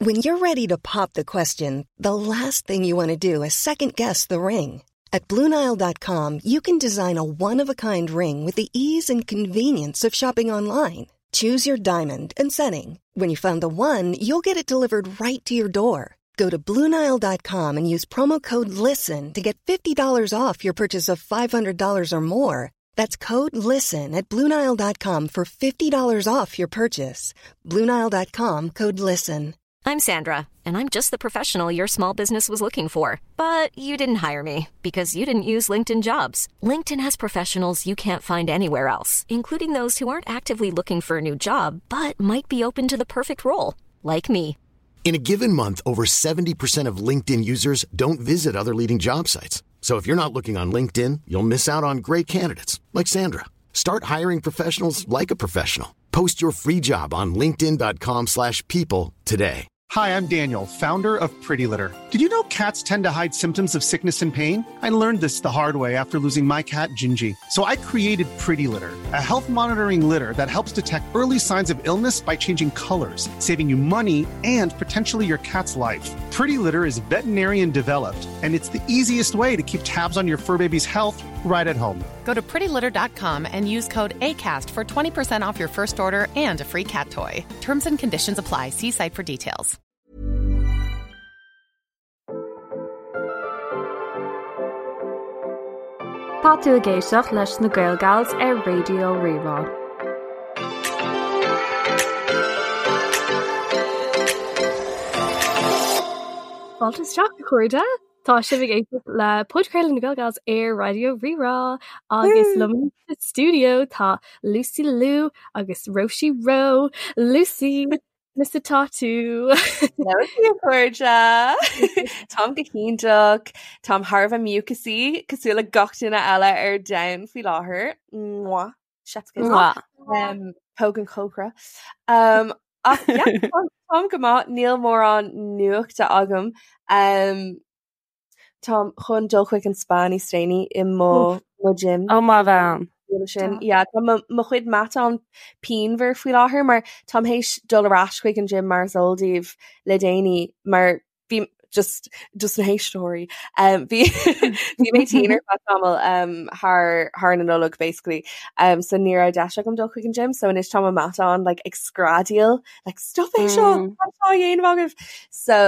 When you're ready to pop the question, the last thing you want to do is second guess the ring. At Bluenile.com, you can design a one of a kind ring with the ease and convenience of shopping online. Choose your diamond and setting. When you find the one, you'll get it delivered right to your door. Go to Bluenile.com and use promo code LISTEN to get $50 off your purchase of $500 or more. That's code LISTEN at Bluenile.com for $50 off your purchase. Bluenile.com code LISTEN. I'm Sandra, and I'm just the professional your small business was looking for. But you didn't hire me because you didn't use LinkedIn jobs. LinkedIn has professionals you can't find anywhere else, including those who aren't actively looking for a new job but might be open to the perfect role, like me. In a given month, over 70% of LinkedIn users don't visit other leading job sites. So if you're not looking on LinkedIn, you'll miss out on great candidates like Sandra. Start hiring professionals like a professional. Post your free job on linkedin.com/people slash people today. Hi, I'm Daniel, founder of Pretty Litter. Did you know cats tend to hide symptoms of sickness and pain? I learned this the hard way after losing my cat, Gingy. So I created Pretty Litter, a health monitoring litter that helps detect early signs of illness by changing colors, saving you money and potentially your cat's life. Pretty Litter is veterinarian developed, and it's the easiest way to keep tabs on your fur baby's health right at home. Go to prettylitter.com and use code ACAST for 20% off your first order and a free cat toy. Terms and conditions apply. See site for details. Tá tú ag éisteacht leis na Gael Gals ar Raidió Rí-Rá. Fáilte isteach a chairde! Tá sibh ag éisteacht le podchraoladh na Gael Gals ar Raidió Rí-Rá agus liom sa stiúideo tá Lucy Lou agus Róisí Ró. Lucy, conas atá tú? Hello a chairde! Táim go hiontach, táim thar a bheith mucusy cosúil le gach duine eile ar domhan faoi láthair. Mwah. Chef's kiss. Mwah. Um, póg an chócaire. Um, ach yeah, táim táim go maith, níl mórán nuachta agam. Um, táim chun dul chuig an spa níos déanaí i mo mo gym. Ó mo bhean. Sin. Yeah, tá mo mo chuid matán pianmhar faoi láthair mar táim théis dul ar ais chuig an gym mar is eol daoibh le déanaí mar bhí just just na héisteoirí um, bhí bhí mé tinn ar feadh tamall um, thar thar na Nollag basically um, so ní raibh deis agam dul chuig an gym so anois tá mo matán like ag screadaíl like stop é seo Mm. cad tá á dhéanamh agaibh so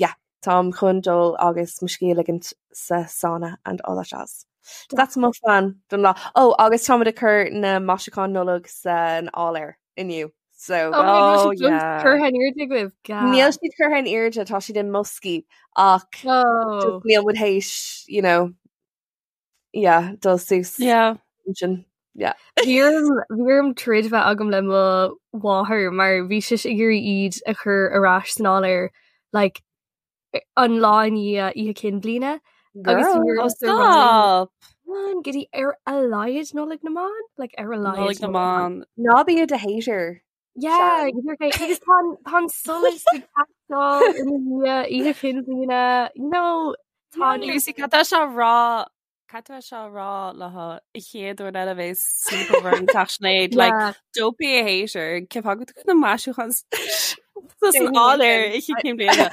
yeah táim chun dul agus mo scíth a ligint sa sauna and all that jazz. That's mo phlean don lá. Oh, agus táimid ag cur na maisiúcháin Nollag san áiléar inniu. So Oh my gosh, Oh, it's just yeah. curtha in airde agaibh. Ga. Níl siad curtha in airde, tá siad i mboscaí ach Oh. just níl muid théis, you know, yeah, dul suas Yeah. sin. Yeah. Bhí orm bhí orm troid bheith agam le mo mháthair mar bhí sise ag iarraidh iad a chur ar ais san áiléar like an lá i ndiaidh Oíche Chinn Bliana agus Girl. bhí Oh, ormsa rá léi, stop! "Man, go dtí ar a laghad Nollaig na mBan? Like ar a laghad Nollaig na Nollaig na mBan. Ná bí i do hater. Yeah, Sharon. go díreach é. Agus tá an- tá an solas ag teastáil i ndiaidh Oíche Chinn Bliana, you know, tá an Lucy, cad tá sé a rá cad tá sé a rá le an chéad uair eile a bheas sleepover an teach Sinéad, like, Yeah. don't be a hater, cén fáth go bhfuil na maisiúcháin san áiléar Oíche Chinn Bliana.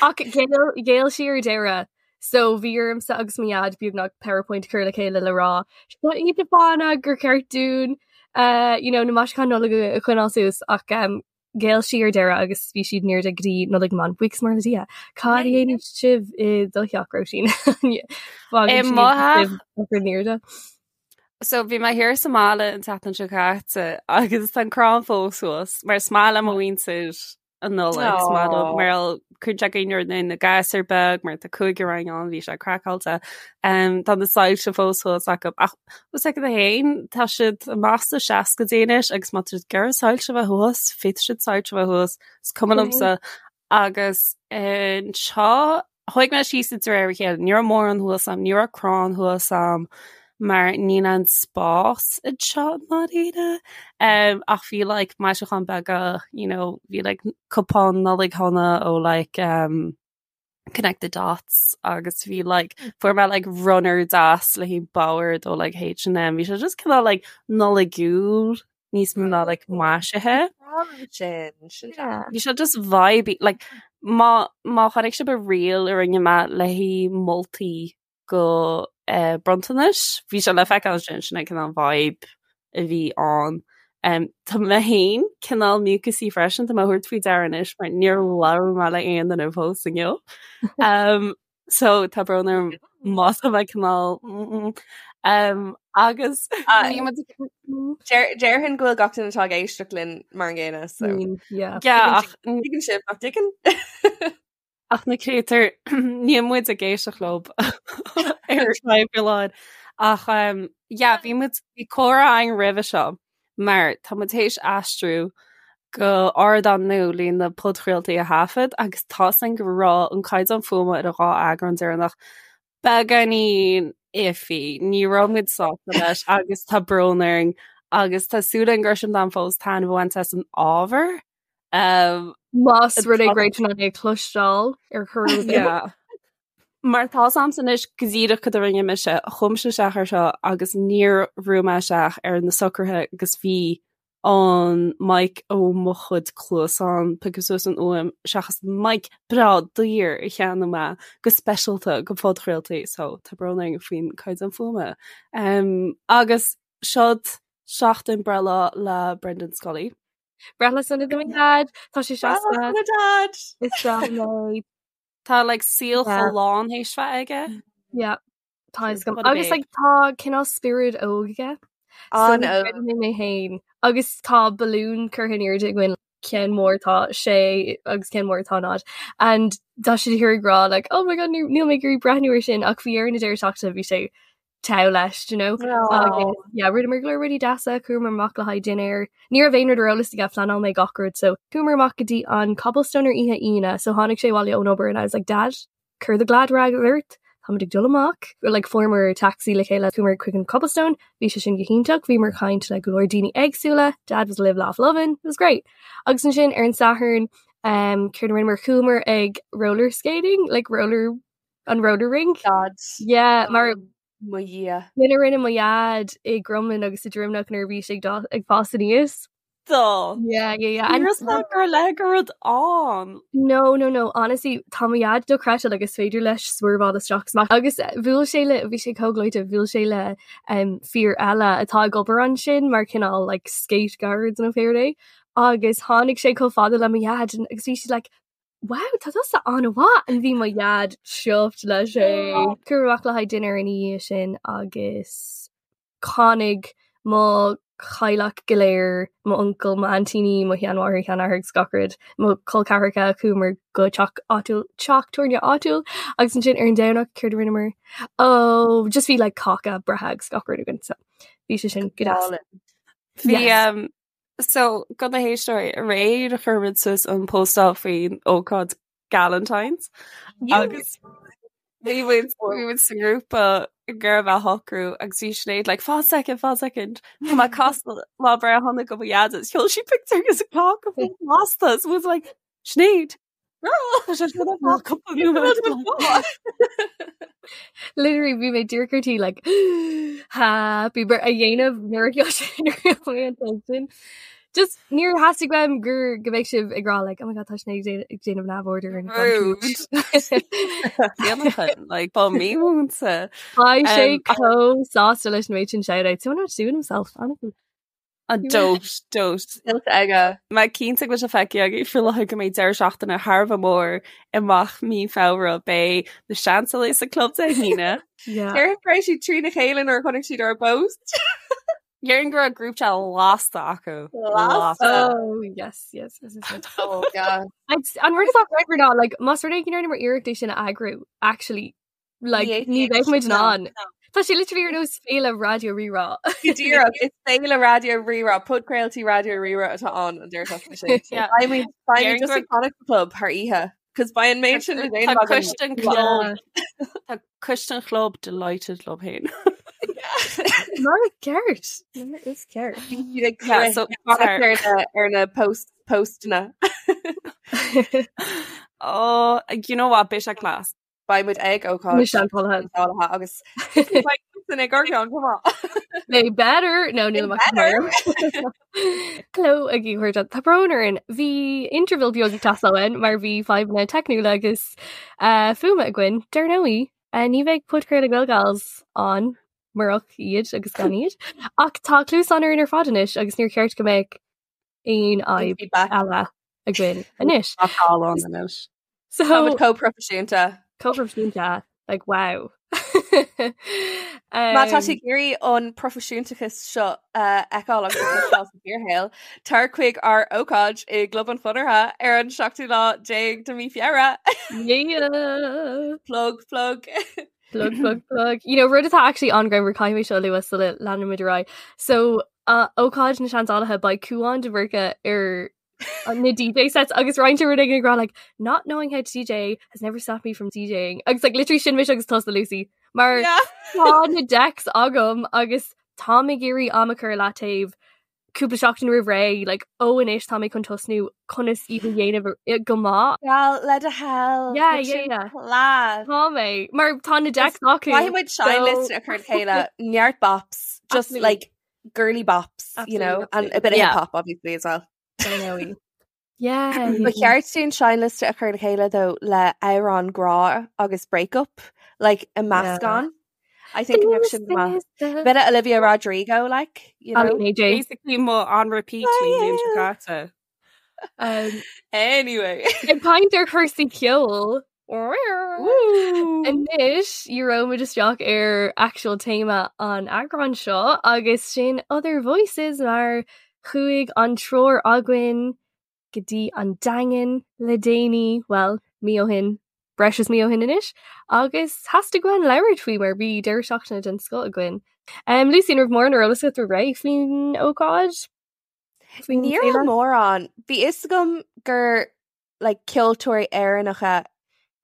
Ach ghéill ghéill sí ar deireadh. So bhí ormsa agus mo dhaid beagnach PowerPoint a chur le chéile le rá seo iad na fáthanna gur cheart dúinn uh, you know, na maisiúcháin Nollag a choinneáil suas ach um, ghéill sí ar deireadh agus bhí siad in airde go dtí Nollaig na mBan. Buíochas mór le Dia. Cad a dhéanfaidh sibh i do theach, Róisín? I mo theach? in airde. So bhí mé thiar sa mbaile an tseachtain seo caite agus tá an crann fós suas mar is maith le mo mhuintir an Nollaig is maith leo mar cuireann sé cuimhne ar na gasúir beag mar tá cúigear againn ann bhí sé craiceáilte. Um, tá na soilse fós thuas acu ach bhfuil a fhios agat féin tá siad amach sna seascaidí anois agus má tá siad ag iarraidh soilse a bheith thuas féadfaidh siad soilse a bheith thuas is cuma liomsa agus anseo Chuaigh mé síos de réir a chéile, ní raibh mórán thuas a'm, ní raibh crann thuas a'm mar níl an spás anseo i ndáiríre. Um, ach bhí like maisiúcháin beaga, you know, bhí like cupán Nollaig shona ó like um, Connect the Dots agus bhí like fuair mé like runner deas le haghaidh bord ó like H&M, bhí sé just cineál like Nollaigiúil. níos mó ná like maisithe. Sin sin Yeah. Bhí sé just vibey like má má chonaic sibh an reel a rinne mé le haghaidh moltaí go eh, bronntanais, bhí sé le feiceáil sin sin é cineál vibe a bhí ann. Um, tá mé féin cineál mucusy freisin, tá mé a thabhairt faoi deara anois mar níor labhair mé le aon duine fós inniu. Um, so tá brón orm má tá mé cineál mm, um, agus Ah, bhí muid ag- Déarfainn go bhfuil gach duine atá ag éisteacht linn mar an gcéanna so. Yeah. Yeah, ach Tuigeann sibh nach dtuigeann? Ach na créatúir níl muid ag éisteacht leo ar feadh lá. Ach um, yeah, bhí muid bhí comhrá againn roimhe seo mar tá muid théis aistriú go ardán nua le na podchraoltaí a thaifead agus tá 's againn go raibh an caighdeán fuaime ar an dhá eagrán deireanach beagáinín iffy. Ní raibh muid sásta leis agus tá brón orainn agus tá súil againn go raibh sibh in ann fós taitneamh a bhaint as an ábhar. Um, Más rud é go raibh tú in ann é a chloisteáil ar chor ar bith. Yeah. Mar tá 's a'msa anois go díreach cad a rinne mise, chuaigh mise isteach ar seo agus níor bhrúigh mé isteach ar na socruithe agus bhí an mic ó mo chuid cluasán piocadh suas an fhuaim seachas an mic breá daor a cheannaigh mé go speisialta go phodchraoltaí so tá brón orainn faoin caighdeán fuaime. Um, agus seod seachtain breithlá le Brendan Scully. Breithlá sona do mo dhaid, tá sé seasta. Dad. Is breá liom é. Tá like saol Yeah. chomh lán théis bheith aige. Yeah. Tá What gom a agus babe. like, tá cineál spiorad óg aige. So An óg. creidim mé féin agus tá balún curtha in airde againn ceann mór tá sé agus ceann mór tá náid. And tá sé ag rá like, oh my god níl níl mé ag iarraidh breathnú ar sin ach bhí ar na deireadh seachtaine bhí sé togha leis, do you know? Agus yeah, rinneamar go leor rudaí deasa, chuamar amach le haghaidh dinnéar. Ní raibh aon rud ar eolas aige phleanáil mé gach rud, so chuamar amach go dtí an Cobblestone ar oíche Aoine, so tháinig sé abhaile ón obair and I was like, Dad, cuir do glad rag ort, táimid ag dul amach. Like fuaireamar taxi le chéile chuamar chuig an Cobblestone, bhí sé sin go hiontach, bhíomar ag caint le go leor daoine éagsúla, Dad was live laugh lovin', it was great. Agus ansin ar an Satharn, um, céard a rinneamar chuamar ag roller skating, like roller an roller rink. Dad. Yeah, mar Mo Dhia. Sin a rinne mo dhaid i gCromghlinn agus i Droimneach nuair a bhí sé ag dá- ag fás aníos. Dó. Yeah, yeah, yeah. And not gur le go rud an. No, no, no. Honestly, tá mo dhaid dochreidte like is féidir leis swerveáil isteach is amach. Agus eh, bhuail sé le bhí sé chomh gleoite, bhuail sé le um, fear eile atá ag obair ansin mar cineál like skate guards nó pé rud é. Agus tháinig sé chomh fada le mo dhaid and- agus bhí siad like Wow, tá tusa an-mhaith and bhí mo dhaid chuffed leis é. Chuamar amach le haghaidh dinnéar ina dhiaidh sin agus tháinig mo theaghlach go léir, mo uncail, mo aintíní, mo sheanmháthair, sheanathair agus gach rud, mo chol ceathracha, chuamar go teach áitiúil, teach tabhairne áitiúil agus ansin ar an Domhnach céard a rinneamar? Oh, just bhí like cáca breithe agus gach rud againn so bhí sé sin go deas. Bhí Yes. um, So do na héisteoirí aréir a chuir muid suas an postáil faoin ócáid Galentine's agus bhí muid bhí muid sa ngrúpa ag iarraidh a shocrú agus bhí Sinéad like fan second fan second Tá mé ag casadh lá breithe shona go mo dhaid agus sheol sí pictiúr agus a cáca lasta so was like Sinéad Tá sé seo ar cúpla nóiméad. Literally bhí mé díreach ar tí like happy birthday a dhéanamh nuair a sheol sé nuair a sheol mé an sin. Just níor theastaigh uaim gur go mbeadh sibh ag rá like oh my god tá Sinéad ag déanamh neamhaird ar an Rude. Déanachan, like ba mímhúinte. Beidh sé Um, ach- chomh sásta leis an méid sin shout-out. So not doing himself, honestly. An dóit, dóit. Tuillte aige. Mé cinnte go bhfuil sé feicthe agaibh faoi láthair go mbeidh deireadh seachtaine thar a bheith mór amach mí Feabhra. Beidh na Seansálaithe sa club Dé hAoine. Yeah. Déarfainn go raibh siad trína chéile nuair a chonaic siad ár bpost. Déarfainn go raibh group chat lasta acu. Lasta. Oh, yes, yes, yes, yes, yes. Oh, yeah. I'd- An rud atá great ná, like, más rud é go ndearnamar iarracht é sin a eagrú, actually, like, ní bheidh muid in ann. Tá sé literally ar nós féile Raidió Rí-Rá. Go díreach, is féile Raidió Rí-Rá, podchraoltaí Raidió Rí-Rá atá ann an deireadh seachtaine sin. Yeah. Beidh muid beidh muid Déarfainn just gur- ag fanacht sa club thar oíche, cos beidh an méid sin le Tá déanamh againn. coiste an chlub Tá coiste an chlub delighted leo féin. Mar is ceart. Mar is ceart. Bhí siad ag Yeah, rith so fanacht sorry. ar na ar na post postanna. Oh, you know what, beidh sé class. Beidh muid ag ócáid Na Seansálaithe. Seansálaithe agus siadsan ag ár gceann chomh maith. They better no níl amach better. Hello a chairde Tá brón orainn bhí interval beag ag teastáil uainn mar bhí fadhbanna teicniúla agus uh, fuaime againn dar ndóigh uh, ní bheidh podchraoladh Gaelgals ann murach iad agus gan iad. Ach tá cluasáin orainn ar fad anois agus níor cheart go mbeadh aon fhadhb Feedback. eile againn anois. Tá call anois. So Táimid chomh proifisiúnta. chomh proifisiúnta like wow. Má tá Um, tú ag iarraidh an proifisiúntachas seo a fheiceáil agus a chloisteáil sa bhfíorshaol, tar chuig ár ócáid i gClub an Chonartha ar an seachtú lá déag de mí Feabhra. Yeah. Plug, plug. Plug, plug, plug. You know, rud atá actually an-ghreannmhar caithfidh mé seo a lua sula leanaimid ar aghaidh. So, uh, ócáid na Seandálaithe beidh Cúán de Bhúrca ar na DJ sets agus roinnt rud ag rá like not knowing how to DJ has never stopped me from DJing agus like literally sin mise agus tusa Lucy mar Yeah. tá na decks agam agus tá ag iarraidh am a chur i leataobh cúpla seachtain roimh ré like ó anois tá mé chun tosnú conas iad a dhéanamh go maith. Well, le do thoil. Yeah, yeah, yeah. Class. Tá mé mar tá na decks acu. Caithfidh muid seinnliosta a chur le chéile neart bops, just Absolutely. like girly bops, you Absolutely, know, and a bit of Yeah. hip hop obviously as well. Dar ndóigh. Yeah. Ba cheart dúinn seinnliosta a chur le chéile though le amhrán grá agus breakup, like a meascán. I think go mbeadh sin go maith. Bit of Olivia Rodrigo, like, you know. AJ. Basically mo on repeat faoin bhliain seo caite. Um, Anyway. ag caint ar chúrsaí ceoil. Anois éireoimid isteach ar actual téama an eagráin seo agus sin Other Voices mar chuaigh an triúr againn go dtí an Daingean le déanaí, well, mí ó shin, breis is mí ó shin anois, agus theastaigh uainn labhairt faoi mar bhí deireadh seachtaine den scoth againn. Um, Lucy, an raibh mórán ar eolas agat roimh ré faoin ócáid? Faoin Ní raibh féile? mórán. Bhí fhios agam gur like, ceoltóirí Éireannacha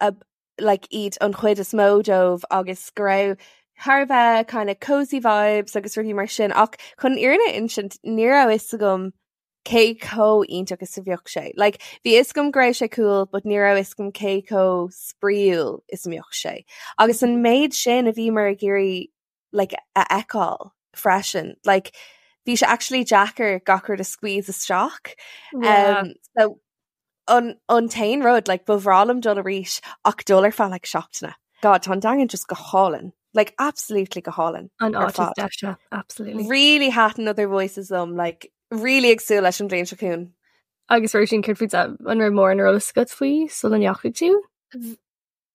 a, like, iad an chuid is mó dóibh agus go raibh thar a bheith kind of cozy vibes agus rudaí mar sin ach chun an fhírinne a insint ní raibh fhios agam cé chomh iontach is a bheadh sé. Like, bhí fhios agam go raibh sé cool, but ní raibh fhios agam cé chomh spraíúil is a mbeadh sé. Agus an méid sin a bhíomar ag iarraidh like, a fheiceáil freisin. Like, bhí sé actually deacair gach rud a squeeze isteach. Yeah. Um, so an, an t-aon rud, like, ba bhreá liom dul arís ach dul ar feadh like, seachtaine. God, tá an Daingean just go hálainn. Like, absolutely go hálainn. An ar áit is fad. deise, absolutely. Really thaitin Other Voices liom, like, really ag súil leis an bhliain seo chugainn. Agus Róisín, céard fútsa an raibh mórán ar eolas agat faoi sula ndeachaigh tú?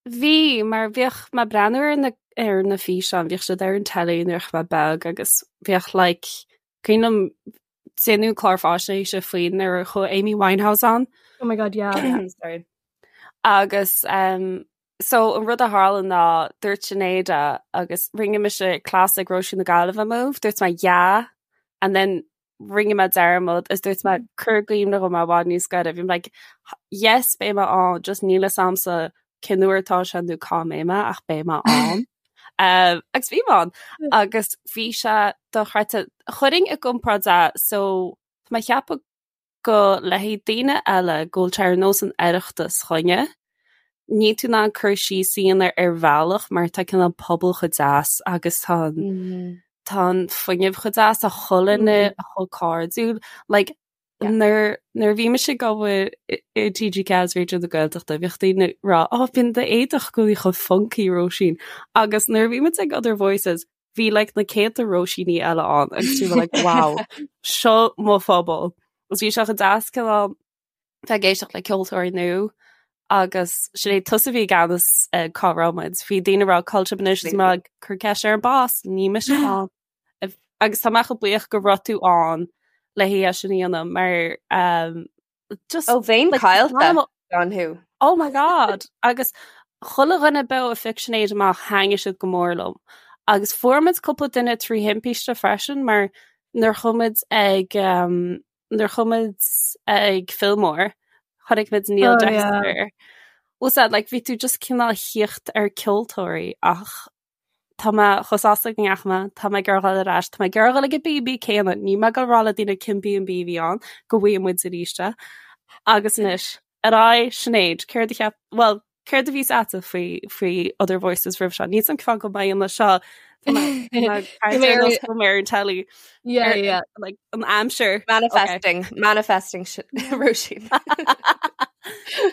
Bhí, mar bhíodh mé ag breathnú ar na ar na físeáin, bhíodh siad ar an telly nuair a bhí mé beag agus bhíodh like cuimhin liom déanamh clár faisnéise faoi nuair a chuaigh Amy Winehouse ann. Oh my god, yeah. Sorry. Agus um, so an rud a tharla ná dúirt Sinéad agus rinne mise cleas ag Róisín na Gaillimhe move, dúirt mé yeah, and then rinne mé dearmad is dúirt mé cur i gcuimhne dhom i bhfad níos gaire. Bhí mé like, yes, beidh mé ann, just níl fhios a'msa cén uair atá sé nó cá mbeidh mé ach beidh mé ann. Um, agus bhí mé ann agus bhí sé dochreidte. Chuirfinn i gcomparáid é so tá mé ag ceapadh go le haghaidh daoine eile go bhfuil sé ar nós an Oireachtas chugainne. Níl tú in ann cur síos a dhéanamh ar bhealach mar tá cineál pobal chomh deas agus tá an tá an fuinneamh chomh deas tá chuile dhuine chomh cairdiúil. Like, nuair nuair a bhí mise ag obair i i TG4 is Raidió na Gaeltachta bhíodh daoine ag rá oh bíonn d'éadach i gcónaí chomh funky Róisín agus nuair a bhí muid ag Other Voices bhí like na céadta Róisíní eile ann agus bhí mé like wow seo mo phobal. Agus bhí sé chomh deas cineál bheith ag éisteacht le ceoltóirí nua agus Sinéad tusa a bhí i gceannas ag cá raibh muid. Bhí daoine ag rá cá bhfuil sibh anois is mé ag cur ceist ar an boss, níl mise ann. Agus tá mé chomh buíoch go raibh tú ann le haghaidh é sin a dhéanamh mar um, just Ó bheinn caillte gan thú. Oh my god! Agus chuile dhuine beo a phioc Sinéad amach thaitnigh siad go mór liom. Agus fuair muid cúpla duine trí thimpiste freisin mar nuair chuaigh muid ag um, nuair chuaigh muid ag Fillmore chonaic muid Neil Oh, yeah. Dexter. Was that like bhí tú just cineál thíocht ar ceoltóirí ach Tá mé chomh sásta go ndeachaigh mé, tá mé ag iarraidh dhul ar ais, tá mé ag iarraidh dhul ag an B&B céanna, níl mé ag dul rá le daoine cén B&B a bhí ann, go bhfaighidh muid arís é. Agus anois, ar aghaidh, Sinéad, céard a cheap, bhuel, céard a bhí 's a'dsa faoi, faoi Other Voices roimh seo? Níl 's a'm cén fáth go mbeidh an seo. Ar an telly. Yeah, yeah. Like an aimsir. Manifesting, manifesting Róisín.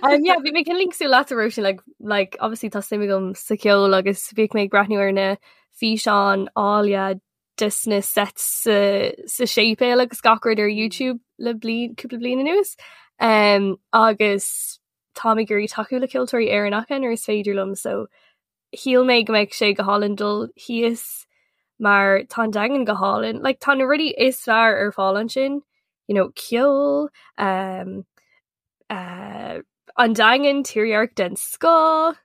Um, yeah, bhí mé cineál cosúil leat Róisín like, like, obviously tá suim agam sa cheol agus bhíodh mé ag breathnú ar na físeáin áille des na sets sa, sa séipéal agus gach rud ar YouTube le bliain, cúpla bliain anuas. Um, agus táim ag iarraidh tacú le ceoltóirí Éireannacha nuair is féidir liom so shíl mé go mbeadh sé go hálainn dul thíos mar tá an Daingean go hálainn. Like, tá na rudaí is fearr ar fáil ansin, you know, ceol, um, uh, an Daingean, tírdhreach den scoth,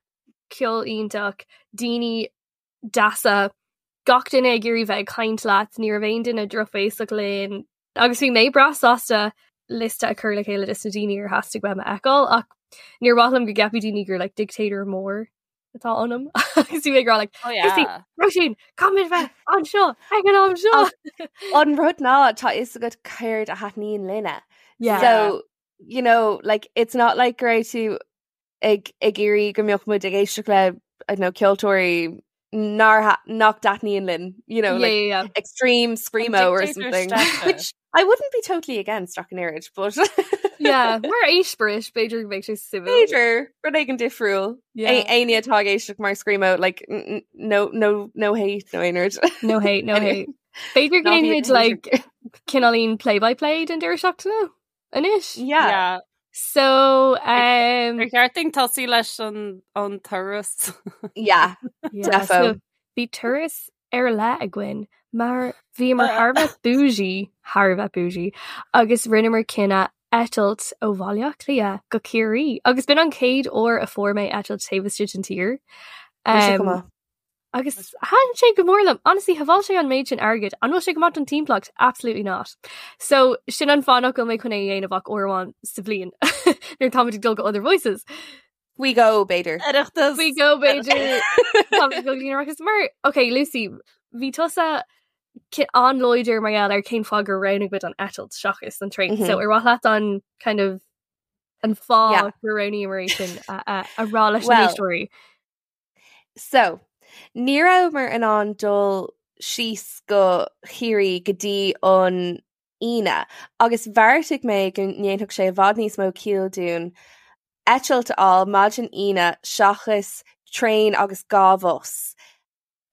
ceol iontach, daoine deasa, gach duine ag iarraidh bheith ag caint leat, ní raibh aon duine drochbhéasach linn, Agus bhí mé breá sásta liosta a chur le chéile des na daoine ar theastaigh uaim a fheiceáil ach níor mhaith liom go gceapfadh daoine gur like dictator mór atá ionam agus bhí mé ag rá like Oh yeah. Róisín, caithfimid bheith anseo ag an am seo. An rud ná tá fhios agat céard a thaitníonn linne. Yeah. So, you know, like it's not like go raibh tú ag ag iarraidh go mbeadh muid ag éisteacht le I don't know, ceoltóirí nár tha- nach dtaitníonn linn, you know, Yeah, like yeah, yeah. extreme screamo or dictator something. Steph. Which I wouldn't be totally against ach an oiread, but Yeah, mar eispéireas b'fhéidir go mbeadh sé suimiúil. B'fhéidir rud éigin difriúil. Yeah. Éinne atá ag éisteacht mar screamo, like n- n- no no no hate no aon rud. No hate, no Anyway. hate. B'fhéidir go Ná ndéanfaimid bíodh like cineáilín play by play den deireadh seachtaine anois. Yeah. Yeah. So um, Ar cheart dúinn tosú leis an an turas. Yeah. yeah, Defo. so bhí turas ar leith againn mar bhíomar thar a bheith bougie, thar a bheith bougie, agus rinneamar cinneadh eitilt ó Bhaile Átha Cliath go Ciarraí agus b'in an chéad uair a fuair mé eitilt taobh istigh den tír. Bhí sé go Um, maith. Agus thaitin sé go mór liom. Honestly, shábháil sé an méid sin airgid. An bhfuil sé go maith don timpeallacht? Absolutely not. So sin an fáth nach bhfuil mé chun é a dhéanamh ach uair amháin sa bhliain nuair táimid ag dul go Other Voices. Faoi dhó, b'fhéidir. Oireachtas. Faoi dhó b'fhéidir. Táimid ag dul go dtí an Oireachtas. Mar, ok, Lucy, bhí tusa an-láidir mar gheall ar cén fáth gur roghnaigh muid an eitilt seachas an traein. So ar mhaith leat an kind of an fáth gur roghnaíomar é sin a rá leis na héisteoirí? So, ní rabhamar in ann dul síos go Ciarraí go dtí an Aoine agus bheartaigh mé go ndéanfadh sé i bhfad níos mó ciall dúinn eitilt a fháil maidin Aoine seachas traein agus 2 bhus.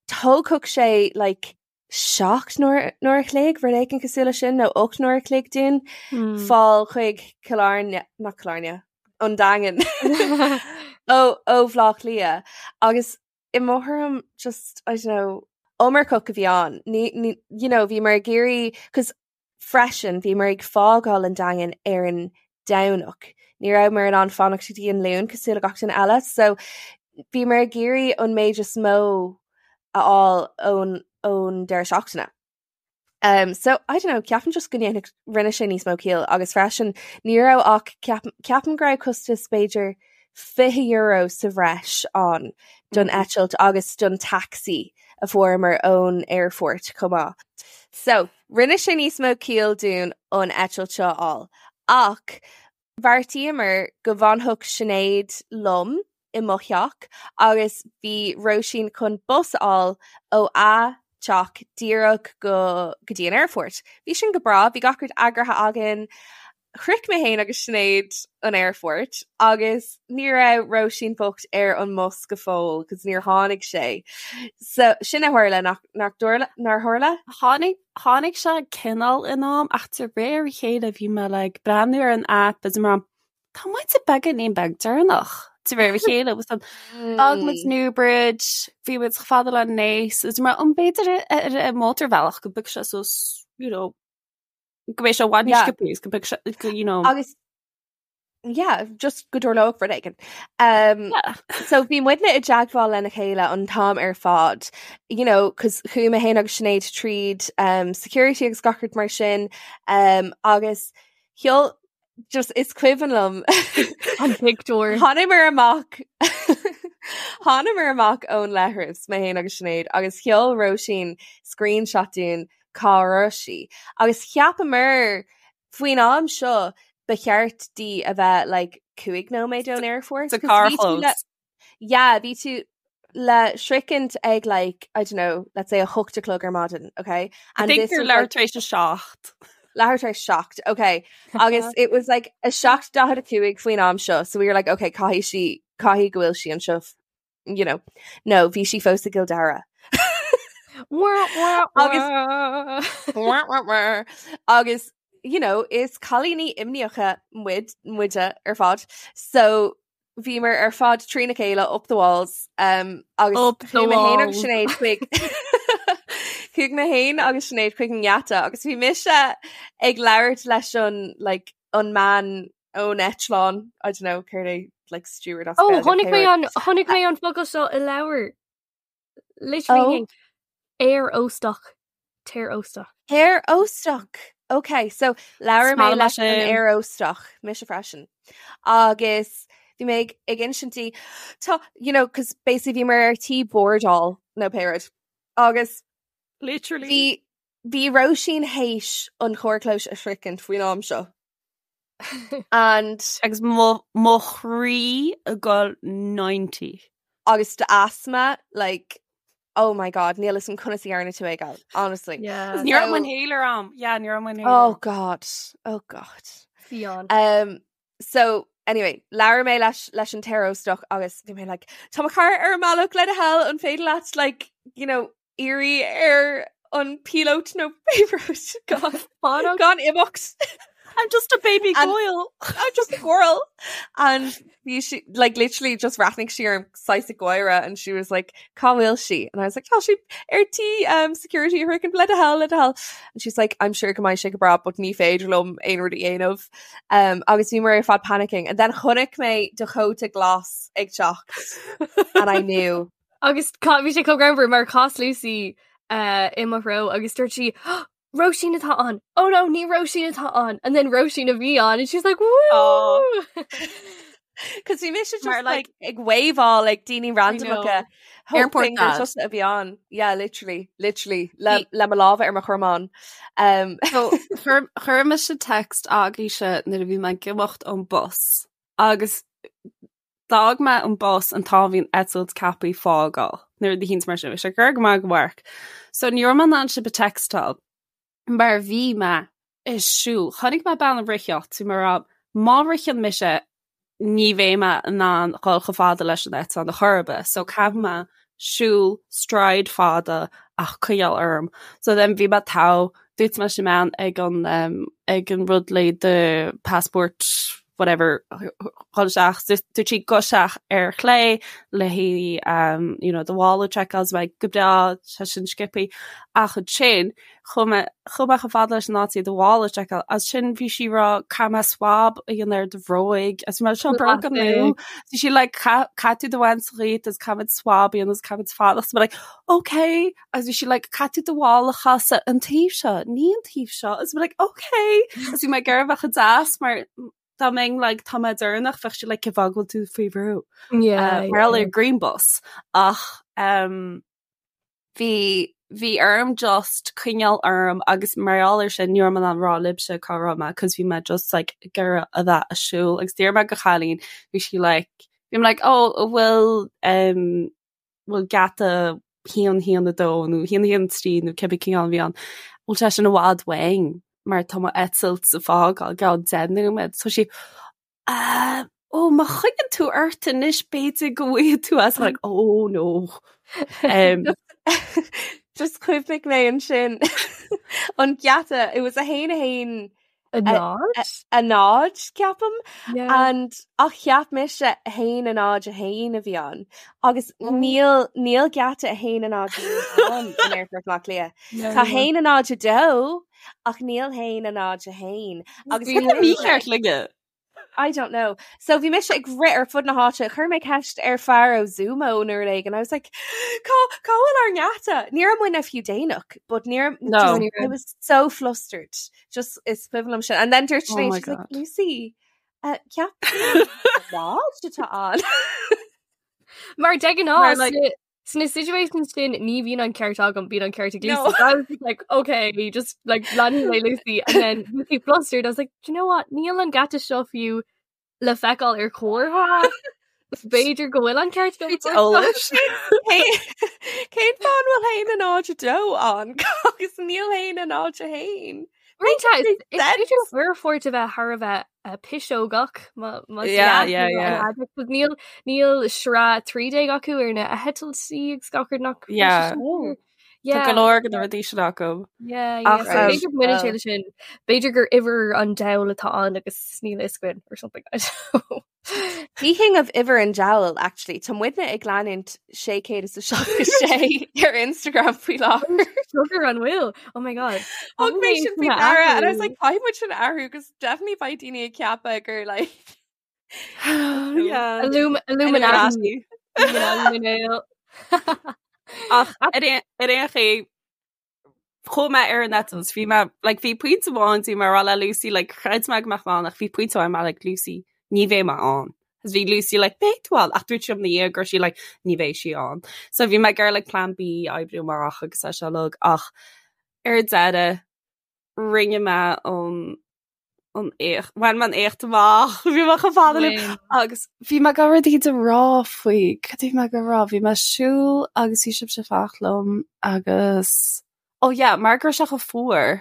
Thógfadh sé like 7 n-uair a chloig, rud éigin cosúil leis sin, nó 8 n-uair a chloig dúinn fáil chuig Cill Airne, nach Cill Airne, an Daingean ó ó Bhaile Átha Cliath. Agus i mo thuairim just, I don't know, iomarcach a bhí ann. Ní, ní, you know, bhíomar ag iarraidh, 'cause Freisin, bhíomar ag fágáil an Daingin ar an Domhnach. Ní rabhamar in ann fanacht go dtí an Luan cosúil le gach duine eile, so bhíomar ag iarraidh an méid is mó a fháil ón ón deireadh seachtaine. Um, so, I don't know, ceapaim just go ndéanfadh, rinne sé níos mó ciall agus freisin ní raibh ach ceapaim, ceapaim go raibh costas b'fhéidir €20 sa bhreis ann don eitilt agus don taxi a fuaireamar ón aerfort chomh maith. So, rinne sé níos mó ciall dúinn an eitilt seo a fháil. Ach bheartaíomar go bhfanfadh Sinéad liom i mo theach agus bhí Róisín chun bus a fháil ó a teach díreach go go dtí an aerfort. Bhí sin go breá, bhí gach rud eagraithe againn. Shroich mé féin agus Sinéad an aerfort agus ní raibh Róisín bocht ar an mbus go fóill cos níor tháinig sé. So sin a tharla nach nach dtarla nár tharla? Tháinig tháinig sé cineál in am ach de réir a chéile bhí mé like breathnú ar an app is mar tá muid beagáinín beag deireanach de réir a chéile was an D'fhág muid Newbridge, bhí muid chomh fada le Naas is mar an b'fhéidir ar an mótarbhealach go mbeadh sé suas you know go mbeidh sé i bhfad níos sciobtha agus go mbeidh sé go you know. Agus yeah, just go dtarlódh rud éigin. Um, Yeah. so bhí muidne i dteagmháil lena chéile an t-am ar fad, you know, cos chuaigh mé féin agus Sinéad tríd um, security agus gach rud mar sin, um, agus sheol just is cuimhin liom An pictiúr. Thánamar amach Thánamar amach ón leithreas, mé féin agus Sinéad, agus sheol Róisín screenshot dúinn cá raibh sí. Agus cheapamar faoin am seo ba cheart di a bheith like 5 nóiméad ón aerfort. Sa 'cause bhí tú carrchlós. le- Yeah, bhí tú. Le sroichint ag like, I don't know, let's say a hocht a chlog ar maidin, okay? And I think gur leathuair tar éis a seacht. Leathuair tar éis seacht, okay. Agus it was like a 7:45 faoin am seo, so we were like, okay, caithfidh sí, caithfidh go bhfuil sí anseo, you know. No, bhí sí fós i gCill Dara. Agus agus you know, is cailíní imníocha muid, muide ar fad. So bhíomar ar fad trína chéile up the walls um, agus Up the chuaigh mé féin agus walls. Sinéad chuig chuaigh mé féin agus Sinéad chuig an ngeata agus bhí mise ag labhairt leis an like, an mbean ón eitleán I don't know céard é like steward as Oh, Gaeilge, chonaic mé pé rud. an chonaic mé an focal seo i leabhar. Literally Oh. Aer óstach. Aer óstach. Aer óstach. Ok, so labhair mé Is maith liom leis an sin. aer óstach, mise freisin. Agus bhí mé ag ag insint di tá you know, cos basically bhíomar ar tí bordáil nó pé rud. Agus Literally. bhí bhí Róisín théis an carrchlós a shroichint faoin am seo. And Agus mo mo chroí ag dul 90. agus do asthma like oh my god níl fhios agam conas a dhearna tú é gal honestly. Yeah. Ní raibh So- inhaler a'm. Yeah, ní raibh inhaler. Oh god. Oh god. Fionn. Um, so anyway, labhair mé leis leis an t-aer óstach agus bhí mé like tá mo chara ar an mbealach le do thoil an féidir leat like you know iarraidh ar an píolóta nó pé rud gan Fanacht. gan imeacht. I'm just a baby And- girl. I'm just a girl. And bhí she like literally just bhreathnaigh sí orm saghas ag gáire and she was like cá bhfuil sí? And I was like tá sí ar tí um, security a shroichint le do thoil le do thoil. And she's like I'm sure go mbeidh sé go breá but ní féidir liom aon rud a dhéanamh. Um, agus bhíomar ar fad panicking and then chonaic mé do chóta glas ag teacht and I knew. Agus bhí sé chomh greannmhar mar chas Lucy uh, i mo threo agus dúirt sí Róisín atá ann. Oh no, ní Róisín atá ann. And then Róisín a bhí ann and she's like woo! Oh. Cos bhí mise just Mar, like, like- ag waveáil like daoine randomacha Airport hoping gur dad. tusa a bhí ann. Yeah, literally, literally le, Bhí- le mo lámha ar mo chromán. Um, So, chuir chuir mise text agaibhse nuair a bhí mé ag imeacht ón bus agus d'fhág mé an bus an t-am bhí an eitilt ceaptha fágáil nuair a híns mar sin bhí sé gur go maith go mharc. So ní raibh mé in ann sibh a textáil mar bhí mé ag siúl. Chonaic mé bean ag ritheacht so mar a má ritheann mise ní bheidh mé in ann dhul chomh fada leis an eitleán ar chor ar bith. So caithfidh mé siúl stride fada ach coinneáil orm. So then bhí mé togha dúirt mé leis an mbean ag an um, ag an rud le do passport whatever dhul isteach dúirt sí gabh isteach ar chlé le haghaidh um, you know, do mhála seiceáil so go breá sé sin sciobtha ach ansin chuaigh mé chuaigh mé chomh fada leis an áit do mhála seiceáil as sin bhí sí ag rá caithfidh mé swab a dhéanamh ar do bhróig as bhí mé seo bróga nua bhí sí like caithfidh tú do bhaint dhíot agus caithfimid swab a dhéanamh agus caithfimid fanacht so mé like okay agus bhí sí like caithfidh tú do mhála a chasadh an taobh seo ní an taobh seo agus mé like okay agus bhí mé ag iarraidh bheith chomh deas mar dá mbeinn like tá mé deireanach bheadh sí like cén fáth go bhfuil tú faoi bhrú Yeah, uh, mar ar green bus ach um, bhí bhí orm just coinneáil orm agus mar gheall air sin ní raibh mé in ann rá libhse cá raibh mé cos bhí mé just like ag iarraidh a bheith ag siúl agus d'iarr mé go chailín bhí sí like bhí mé like oh an bhfuil um, bhfuil geata haon haon a dó nó haon haon trí nó cibé cineál a bhí ann bhfuil sé sin i bhfad uainn mar tá mo eitilt ag fágáil i gceann deich nóiméad so sí Uh, ó má choinníonn tú ort anois b'fhéidir go bhfaighidh tú as like oh no. Um, Just chuimhnigh mé ansin an geata it was a haon a haon A náid? a náid ceapaim Yeah. and ach cheap mise a haon a náid a haon a bhí ann agus níl níl geata a haon a náid a haon ann in Aerfort Bhaile Átha Cliath. No. Tá haon a náid a dó ach níl haon a náid a haon agus Cad é mícheart linne? I don't know. So bhí mise ag rith ar fud na háite, chuir mé ceist ar fear ó Zumo nó rud éigin. I was like, cá cá bhfuil ár ngeata? Ní raibh muidne fiú déanach, but ní raibh- No. just- Ní raibh. I was so flustered. Just is cuimhin liom sin. And then dúirt Oh Sinéad, my she's like, God. Lucy, uh, ceap náid atá ann. Mar de Mar, ghnáth like- sna situations sin ní bhíonn an ceart agam bíonn an ceart ag Lucy. No. So I was just like, okay, just like leanfaidh mé Lucy and then Lucy flustered. I was like, do you know what? Níl an geata seo fiú le feiceáil ar chomhartha. B'fhéidir go bhfuil an ceart eolais. Cén fáth an bhfuil haon a náid a dó ann agus níl haon a náid a haon? Is aerfort a bheith thar a bheith piseogach níl níl sraith 13 acu ar na heitiltí agus gach rud nach Tá go leor de na rudaí sin acu. B'fhéidir go mbaineann sé leis sin b'fhéidir gur uimhir an diabhail atá ann agus níl a fhios againn or something. Speaking of uimhir an diabhail, actually, tá muidne ag leanúint 666 ar Instagram faoi láthair. Sugar an bhfuil? Oh my god. Thug mé sin faoi deara and I was like caithfidh muid sin a athrú because definitely beidh daoine ag ceapadh gur like Yeah. Illuminati. Illuminati. Ach ar aon ar aon chaoi chuaigh mé ar an eitilt bhí mé like bhí pointe amháin bhí mé ag rá le Lucy like chreid mé go mbeadh mé ann ach bhí pointe amháin mé like Lucy ní bheidh mé ann. Agus bhí Lucy like beidh tú ann ach dúirt sí liom ina dhiaidh go raibh sí like ní bheidh sí ann. So bhí mé ag iarraidh like plan B a oibriú amach agus é seo uilig ach ar deireadh rinne mé an an éacht bhain mé an éacht amach bhí mé chomh fada liom Bhain. agus bhí mé ag rud éigin a rá faoi cad a bhí mé ag rá bhí mé ag siúl agus bhí sibhse ag fanacht liom agus oh yeah mar go raibh sé chomh fuar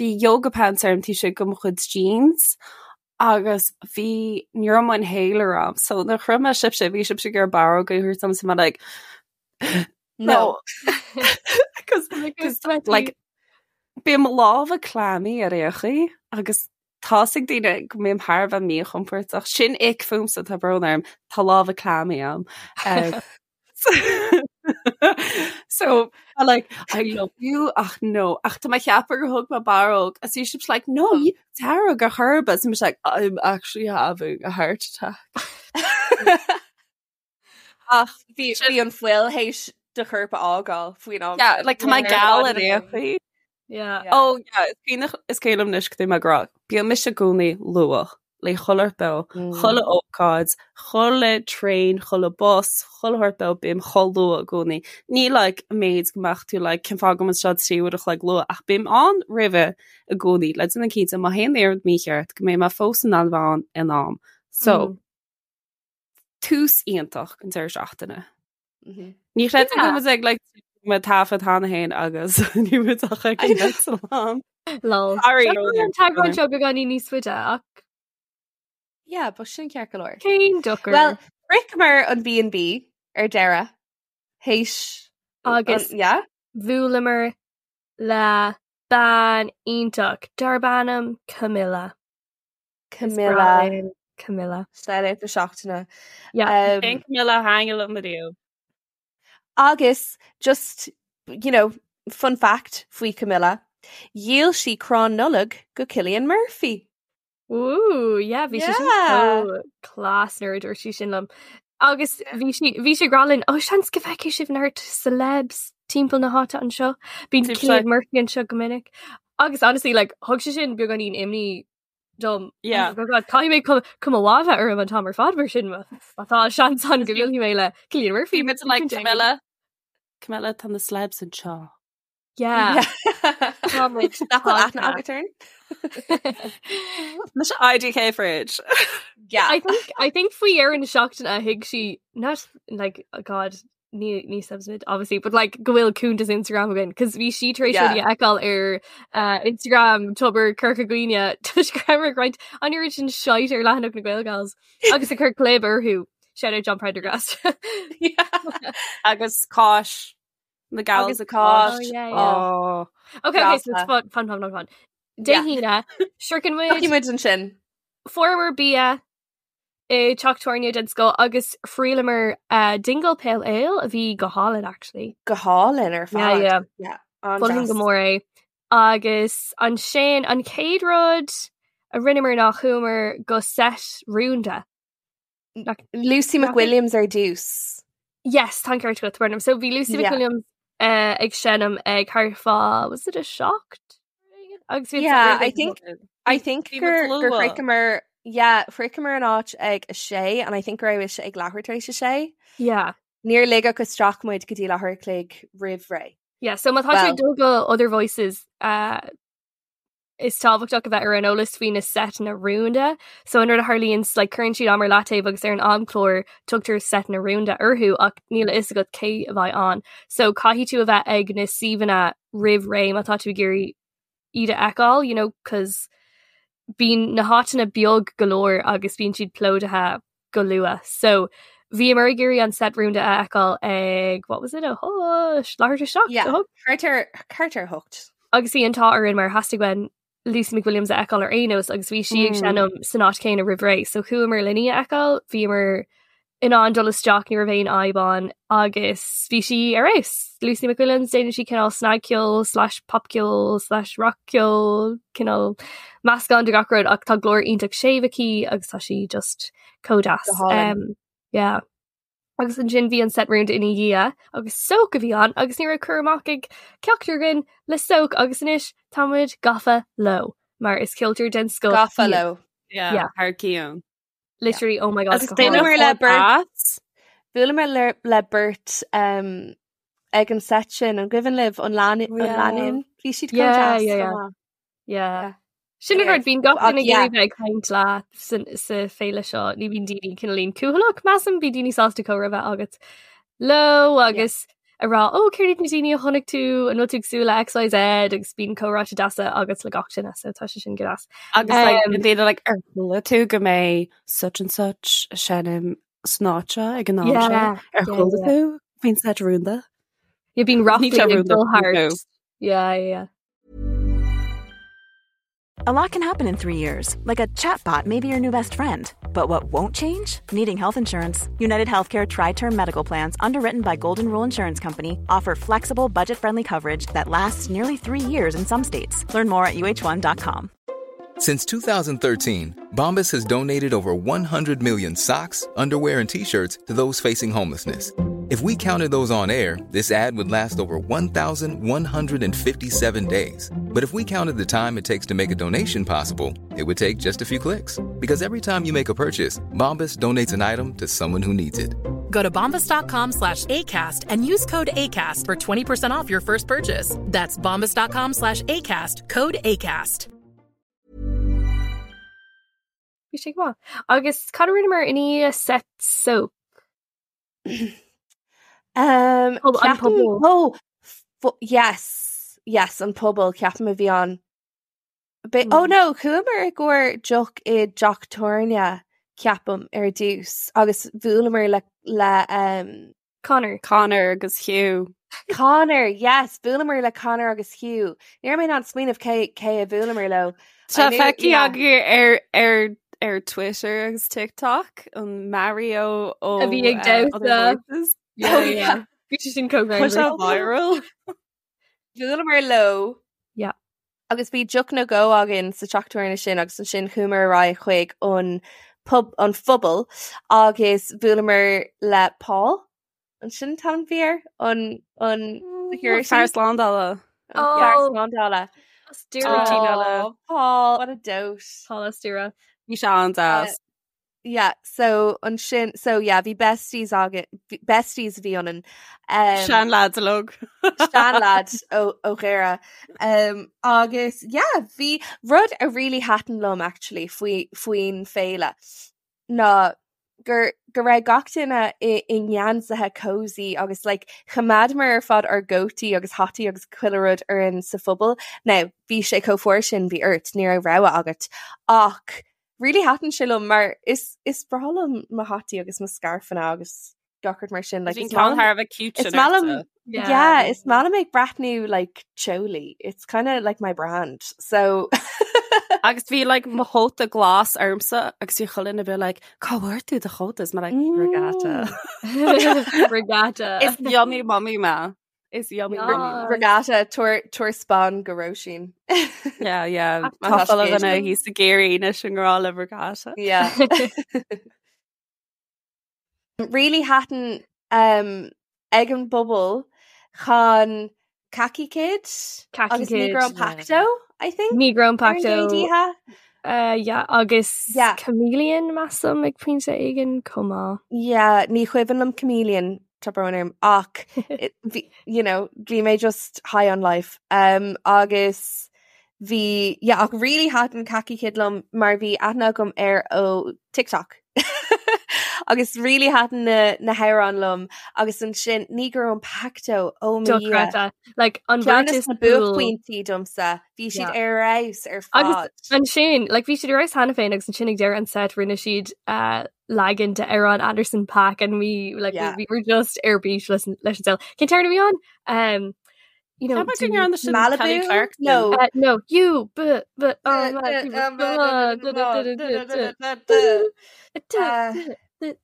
bhí yoga pants orm taobh istigh de mo chuid jeans agus bhí ní raibh mo inhaler agam so nuair a chroith mé sibhse bhí sibhse ag iarraidh barróg a thabhairt dom so mé like no because like Bíonn mo lámha clammy ar aon chaoi agus tá's ag daoine go mbím thar a bheith míchompordach. Sin ick fúmsa, tá brón orm, tá lámha clammy agam. Um, so, I'm like, I love you, ach no. Ach tá mé ag ceapadh gur thug mé barróg. Agus bhí sibhse like, no, you dearg ar chor ar bith. So I'm like, I'm actually having a heart attack. Ach bhí bhí an fuil théis do chorp a fhágáil faoin am. Yeah, like tá mé geal ar aon chaoi. Yeah. Oh yeah, is cuimhin is cuimhin liom anois cad é mé ag rá. Bíonn mise i gcónaí luath le chuile shórt beo, mm. chuile ócáid, chuile traein, chuile bus, chuile shórt beo bím chomh luath i gcónaí. Ní like an méid go mbeadh tú like cén fáth go bhfuil seo trí uair a chloig luath ach bím ann roimhe i gcónaí le déanamh cinnte má théann aon rud mícheart go mbeidh mé fós in ann bheith ann in am. So, mm. tús iontach an deireadh seachtaine. Mhm. Ní chreidim go bhfuil ag like mé taifead cheana féin agus ní bhfuil ach ag an eitleán. Lol. Sorry. An t-eagrán seo beagáinín níos faide ach Yeah, but sin ceart go leor. cén dochar. Well, shroicheamar an B&B ar deireadh. Théis Agus- an- yeah? bhuaileamar le bean iontach darb ainm Camilla. Camilla. Camilla. Shout-out na seachtaine. Yeah. Um, Cén Camilla a thaitnigh liom ariamh. Agus just you know, fun fact faoi Camilla, dhíol sí crann Nollag go Cillian Murphy. Ooh, yeah, bhí sí sin Yeah. so class nuair a dúirt sí sin liom. Agus bhí sí bhí sí ag rá linn, ó seans go bhfeicfidh sibh neart celebs timpeall na háite anseo. Bíonn Seems Cillian like- Murphy anseo go minic. Agus honestly, like, thug sé sin beagáinín imní dom. Yeah. Oh God, caithfidh mé cuma cuma mhaith a bheith orm an t-am ar fad mar sin má tá seans ann go mbuailfidh mé le Cillian Murphy. Bhí muid like Camilla. Camilla tá na celebs anseo. Yeah. Tá muid Nach bhfuil aithne tagtha. agat orainn? Mise IDK fridge. Yeah. I think I think faoi dheireadh na seachtaine a thuig sí not like oh God ní ní celebs muid obviously but like go bhfuil cuntas Instagram againn cos bhí sí tar éis Yeah. rudaí a fheiceáil ar uh, Instagram Tobar Corca Dhuibhne toisc go rabhamar ag roinnt an oiread sin shite ar leathanach na Gaelgals agus ag cur clib orthu shout out John Prendergast Yeah. Agus cáis. Na gals Agus a cáis. Oh, yeah, yeah. Oh. Okay, okay, so it's Grasa. fun fun fun fun fun Dé Yeah. hAoine shroicheann muid Tiocfaidh muid ansin. Fuaireamar bia i teach tábhairne den scoth agus thriaileamar uh, Dingle Pale Ale a bhí go hálainn actually. Go hálainn ar Yeah, fad. yeah. Yeah, Mholfainn go an-deas. mór é. Agus ansin an chéad rud a rinneamar ná chuamar go set rúnda. Lucy McWilliams ar dtús. Yes, tá an ceart agat, Burnham. So bhí Lucy Yeah. McWilliams uh, ag seinm ag thart fá was it a seacht? Agus bhí Yeah, I think I think Bhí gur muid gur luath. shroicheamar yeah, shroicheamar an áit ag a sé and I think go raibh sé ag leathuair tar éis a sé. Yeah. Níor ligeadh isteach muid go dtí leathuair a chloig roimh ré. Yeah, so má tá tú Well- ag dul go Other Voices uh, Is tábhachtach a bheith ar an eolas faoi na seiteanna rúnda. So an rud a tharlaíonn like cuireann siad am ar leataobh agus ar an amchlár tugtar seiteanna rúnda orthu ach níl a fhios agat cé a bheidh ann. So caithfidh tú a bheith ag na suíomhanna roimh ré má tá tú ag iarraidh iad a fheiceáil, you know, 'cause bíonn na háiteanna beag go leor agus bíonn siad plódaithe go luath. So bhíomar ag iarraidh an set rúnda a fheiceáil ag what was it a hocht leathuair tar éis a Yeah, hocht? thart ar thart ar hocht. Agus bhí an t-ádh orainn mar theastaigh uainn Lucy McWilliams a fheiceáil ar aon nós agus bhí sí ag Mm. seinm san áit chéanna roimh ré, so chuamar lena í a fheiceáil, bhíomar in ann dul isteach, ní raibh aon fhadhb ann agus bhí sí ar fheabhas. Lucy McWilliams, déanann sí cineál snagcheol slash popcheol slash rockcheol, cineál meascán de gach rud ach tá glór iontach séimh aici agus tá sí just chomh deas. Go hálainn. Um, yeah. Agus ansin bhí an set rúnda ina dhiaidh agus Soak a bhí ann agus ní raibh cur amach ag ceachtar againn le Soak agus anois tá muid gafa leo mar is ceoltóir den scoth Gafa iad. leo. Yeah, Yeah. thar cionn. Literally, oh my god, Agus go déanamh Bhuaileamar hard. le beirt Bhuaileamar le le beirt um, ag an set sin an gcuimhin libh an lánúin Oh, yeah. an lánúin bhí siad chomh Yeah, deas yeah, chomh yeah. maith. Yeah. Yeah. Sin an Anyway, rud bíonn gach ach duine ag yeah. iarraidh bheith ag caint leat san- sa féile seo ní bhíonn daoine cineáilín cúthaileach measaim bíonn daoine sásta comhrá a bheith agat leo agus a rá ó céard iad na daoine a chonaic tú an bhfuil tú ag súil le XYZ agus bíonn comhráite deasa agat le gach duine so tá sé sin go deas. Agus like, Um, an daoine like, ar chuala tú go mbeidh such and such ag seinm san áit seo ag an am seo Yeah, ar yeah, chuala yeah. tú faoin set rúnda? Yeah, bíonn Ní ráflaí sé ag rúnda dul thart. no. Yeah, yeah, yeah. A lot can happen in 3 years, like a chatbot may be your new best friend. But what won't change? Needing health insurance. United Healthcare Tri Term Medical Plans, underwritten by Golden Rule Insurance Company, offer flexible, budget friendly coverage that lasts nearly 3 years in some states. Learn more at uh1.com. Since 2013, Bombas has donated over 100 million socks, underwear, and t shirts to those facing homelessness. If we counted those on air, this ad would last over 1,157 days. But if we counted the time it takes to make a donation possible, it would take just a few clicks. Because every time you make a purchase, Bombas donates an item to someone who needs it. Go to bombas.com slash ACAST and use code ACAST for 20% off your first purchase. That's bombas.com slash ACAST, code ACAST. Bhí sé go maith. Agus cad a rinneamar i ndiaidh set Soak? Um, Pub- an ceapaim- pobal. Oh, yes, yes, an pobal ceapaim a bhí ann. Be- Oh Mm. no, chuamar i gcomhair deoch i dteach tábhairne ceapaim ar dtús agus bhuaileamar le le um, Connor. Connor agus Hugh. Connor, yes, bhuaileamar le Connor agus Hugh. Ní raibh mé in ann smaoineamh cé cé a bhuaileamar leo. Tá I knew- feicthe yeah. agaibh ar ar ar Twitter agus TikTok an Mario ó A bhí ag uh, Other damhsa. Voices. Yeah, Oh, yeah. yeah. Bhí sé sin chomh Tá sé greannmhar. viral. Bhuaileamar leo. Yeah. Agus bhí deoch nó dhó againn sa teach tábhairne sin agus ansin chuamar ar aghaidh chuig an pub an phobal agus bhuaileamar le Paul. An sin an t-ainm a bhí air? An an security? Fear slándála. An fear Oh. slándála. As Doire. Oh. Oh, Paul, what a dote. Paul as Doire. Bhí sé an-deas. Yeah, so ansin so yeah, bhí besties againn besties a bhí ionainn. Um, Sean lads log. Sean lad ó ó Dhoire. Um, agus yeah, bhí rud a really thaitin liom actually faoi faoin féile ná gur go raibh gach duine i i ngeansaithe cozy agus like choimeádamar ar fad ár gcótaí agus hataí agus chuile rud orainn sa phobal. Now, bhí sé chomh fuar sin bhí ort, ní raibh rogha agat. Ach really thaitin sé liom mar is is breá liom mo hataí agus mo scarfanna agus gach rud mar sin like Bhí is ceann maith liom- thar a bheith cute is sin maith liom ortsa. yeah, is maith liom ag breathnú like teolaí. It's kind of like my brand. So Agus bhí like mo chóta glas ormsa agus bhí chuile dhuine a bheith like cá bhfuair tú do chóta is mé like regatta. Regatta. Is yummy mummy mé. Is yummy mummy mé. Regatta tabhair tabhair spon go Róisín. Yeah, yeah. Má Tá tá chuile sé dhuine thíos ag iarraidh anois i ngrá le regatta. Yeah. Really thaitin um, ag an bpobal chan Khaki Kid Khaki agus Kid. Negro Pacto, I think. Negro ar an Pacto. gcéad oíche. Uh, yeah, agus Yeah. Chameleon measaim ag pointe éigin chomh maith. Yeah, ní cuimhin liom Chameleon tá brón orm ach it- bhí- you know, bhí mé just high on life. Um, agus Bhí, yeah, ach really thaitin Khaki Kid liom mar bhí aithne agam air ó TikTok. Agus really thaitin na, na hamhráin liom agus ansin Negro Impacto, oh mo Dhia. Dochreidte. Like, an Ceann bheirt de is na cool. buaicphointí domsa, bhí siad Yeah. ar fheabhas ar Agus fad. ansin, like, bhí siad ar fheabhas cheana féin agus ansin ag deireadh an set rinne siad uh, leagan de amhrán Anderson .Paak and we, like, Yeah. we, we were just ar bís leis an leis an saol. Cén t-amhrán a bhí ann? Um, you know, Tá go ndearna sin Kelly Malibu? Clarkson. No. Uh, no, you, but, but, Uh, oh, Uh,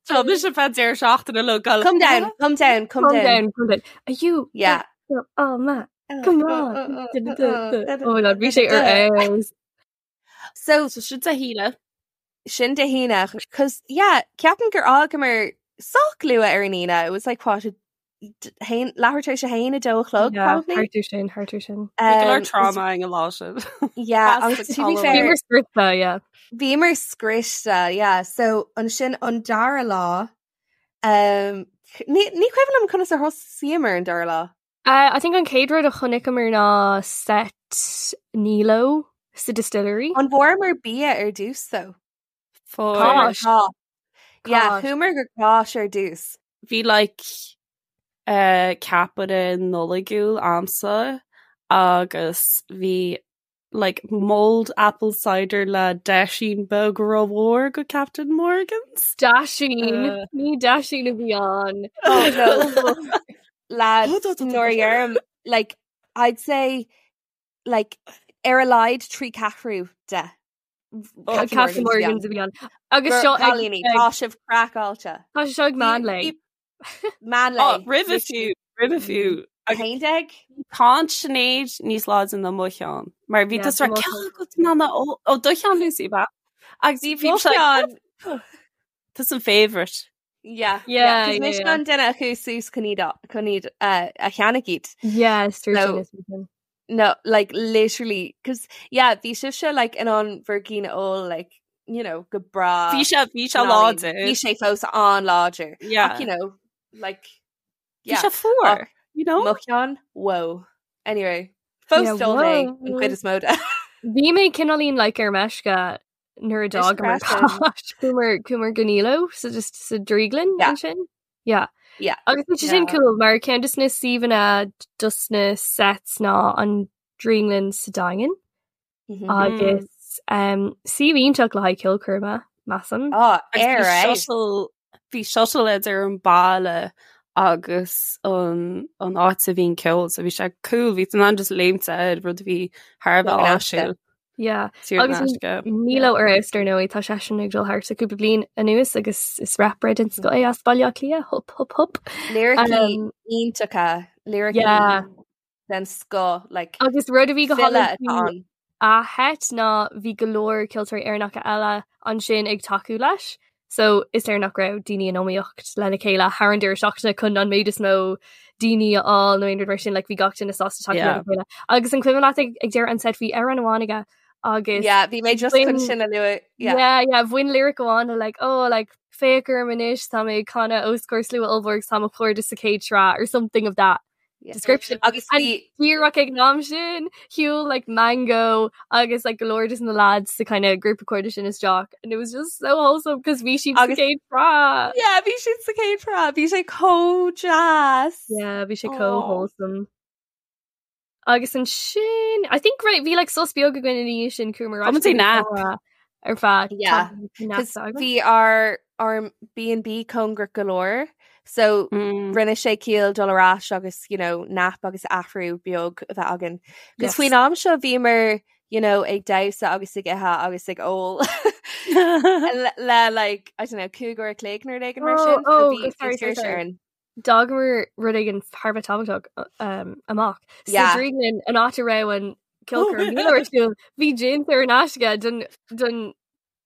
Tá mise feadh deireadh seachtaine le gal. Come down, come down, come Calm down. down, calm down. Are you, Yeah. but, oh, man, come on. Oh my god, bhí sé ar fheabhas. So So sin Dé hAoine. sin Dé hAoine, cos yeah, ceapaim gur fhágamar sách luath ar an Aoine. It was like what, a haon leathuair tar éis a haon, a dó a chlog Yeah, probably. thart air sin, thart air sin. Bhí go leor Um, trauma an lá sin. yeah, As agus the to be column. fair, Bhíomar scriosta, yeah. Bhíomar scriosta, yeah. So ansin an dara lá, um, ní, ní cuimhin liom conas a thosaíomar an dara lá. Uh, I think an chéad rud a chonaiceamar ná set Nilo sa distillery. An bhfuaireamar bia ar dtús though? Fuair. Cáis. Tá. Yeah, Cáis. chuamar go Cáis ar dtús. Bhí like uh, ceapaire Nollaigiúil a'msa agus bhí like mulled apple cider le deisín beag rómhór go Captain Morgan's. Daisín, Uh, ní daisín a bhí ann. Oh no. Lads, nuair a deirim, like, I'd say, like, ar a laghad 3 ceathrú de. Oh, Captain Captain Morgan's Morgan's a bhí ann. Agus seo ag- Cailíní, ag- tá sibh craiceáilte. Tá sé seo ag meán lae. Meán Oh, lae. roimhe fiú, roimhe fiú. Agus Haon déag? Tá Sinéad níos láidre ná mo cheann. Mar bhí Yeah, tusa mo ceann cheann. agat ná na ó ó, do cheann Lucy ba. Agus Bhí bhí mo sé cheann. Tusa an favourite. Yeah, Yeah, yeah. yeah, Mise yeah. an duine a chuaigh suas chun iad a- chun iad uh, a cheannach iad. Yes, So- sin is sin. No, like literally, cause yeah, bhí sibhse like in ann bhur gcinn a ól like, you know, go breá. Bhí sé bhí sé Bhí láidir. sé fós an-láidir. Yeah. Ach, you know, like, Bhí yeah. sé fuar, you know? Mo cheann, whoa. Anyway, fós Yeah, d'ól mé whoa. an chuid is mó de. Bhí mé cineáilín like ar meisce nuair a d'fhágamar freisin. Cáis. Chuamar chuamar go Nilo so just sa drioglann Yeah. ansin. Yeah. Yeah. Agus bhí sé sin Yeah. cool mar ceann de na suíomhanna dos na sets ná an drioglann sa Daingean Mhm. agus um, suíomh iontach le haghaidh ceolchoirme measaim. Oh, Agus ar bhí right. shuttle bhí shuttle idir an baile agus an an áit a bhí an ceol, so bhí sé cool, bhí tú in ann just léimt air rud a bhí thar a bheith Saor in aisce. áisiúil. Yeah. Saor in Agus aisce. Nilo ar fheabhas dar ndóigh tá seisean ag dul thart sa cúpla bliain anuas agus is rapper den scoth é as Baile Átha Cliath hup hup hup. Liricí Um, iontacha, liricí Yeah. den scoth, like, Agus rud a bhí go file hálainn atá faoi ann. a sheit ná bhí go leor ceoltóirí Éireannacha eile ansin ag tacú leis. So is léir nach raibh daoine in iomaíocht lena chéile thar an deireadh seachtaine chun an méid is mó daoine a fháil nó aon rud mar sin like, bhí gach duine sásta tacú Yeah. lena chéile. Agus an cuimhin leat ag ag deireadh an set bhí amhrán amháin aige agus Yeah, bhí mé just chun bhain- sin a lua. Yeah. Yeah, yeah, bhain lyric amháin le like, oh, like, féach orm anois tá mé ag canadh os comhair slua ollmhór agus tá mo chairde sa chéad sraith or something of that Yeah. description. Agus And bhí díreach ag an am sin shiúil like Mango agus like go leor de na lads sa kind of grúpa cairde sin isteach and it was just so wholesome because bhí siad sa Agus- chéad sraith. Yeah, bhí siad sa chéad sraith, bhí sé chomh deas. Yeah, bhí sé chomh Aw. wholesome. Agus ansin I think right bhí like sos beag againn ina dhiaidh sin chuamar Tá muid ag nap. ar feadh Yeah, nap Cos bhí ár ár B&B cóngarach go leor, so Mm. rinne sé ciall dul ar ais agus you know, nap agus athrú beag a bheith againn. Cos Yes. faoin am seo bhíomar you know, ag damhsa agus ag ithe agus ag ól le, le like, I don't know, cúig uair a chloig nó rud éigin mar Oh, sin, so oh, bhí sorry, sorry, tuirse sorry. orainn. D'fhágamar rud éigin thar a bheith tábhachtach amach. Sa Yeah. drioglann an áit a raibh an ceolchoirm Nilo ar siúl, bhí gin saor in aisce don don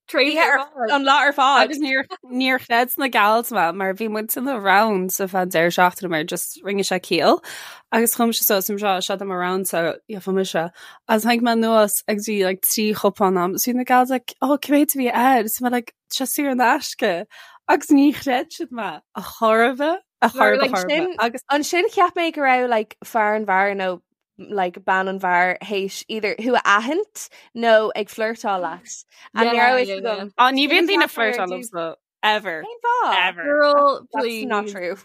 tréimhse Bhí ar fad. an lá ar fad. Agus níor níor chreid na gals mé mar bhí muid in the round sa fan deireadh seachtaine mar just rinne sé ciall agus chum sé suas seo seo am round so yeah, mise agus tháinig mé anuas agus bhí like 3 chupán a'm so bhí na gals like oh cé mhéad a bhí air so mé like seo saor in aisce agus ní chreid siad mé a chorba a Mar, chorba like, chorba sin- agus Ansin cheap mé go raibh like fear an bheáir nó like bean an bheáir théis either thú a aithint nó ag flirtáil leat. And ní Yeah, raibh yeah, fhios agam. Á, ní bhíonn Sin daoine deacair flirtáil ar dtús. liomsa ever. Cén fáth? Ever. Girl, That's please. not true.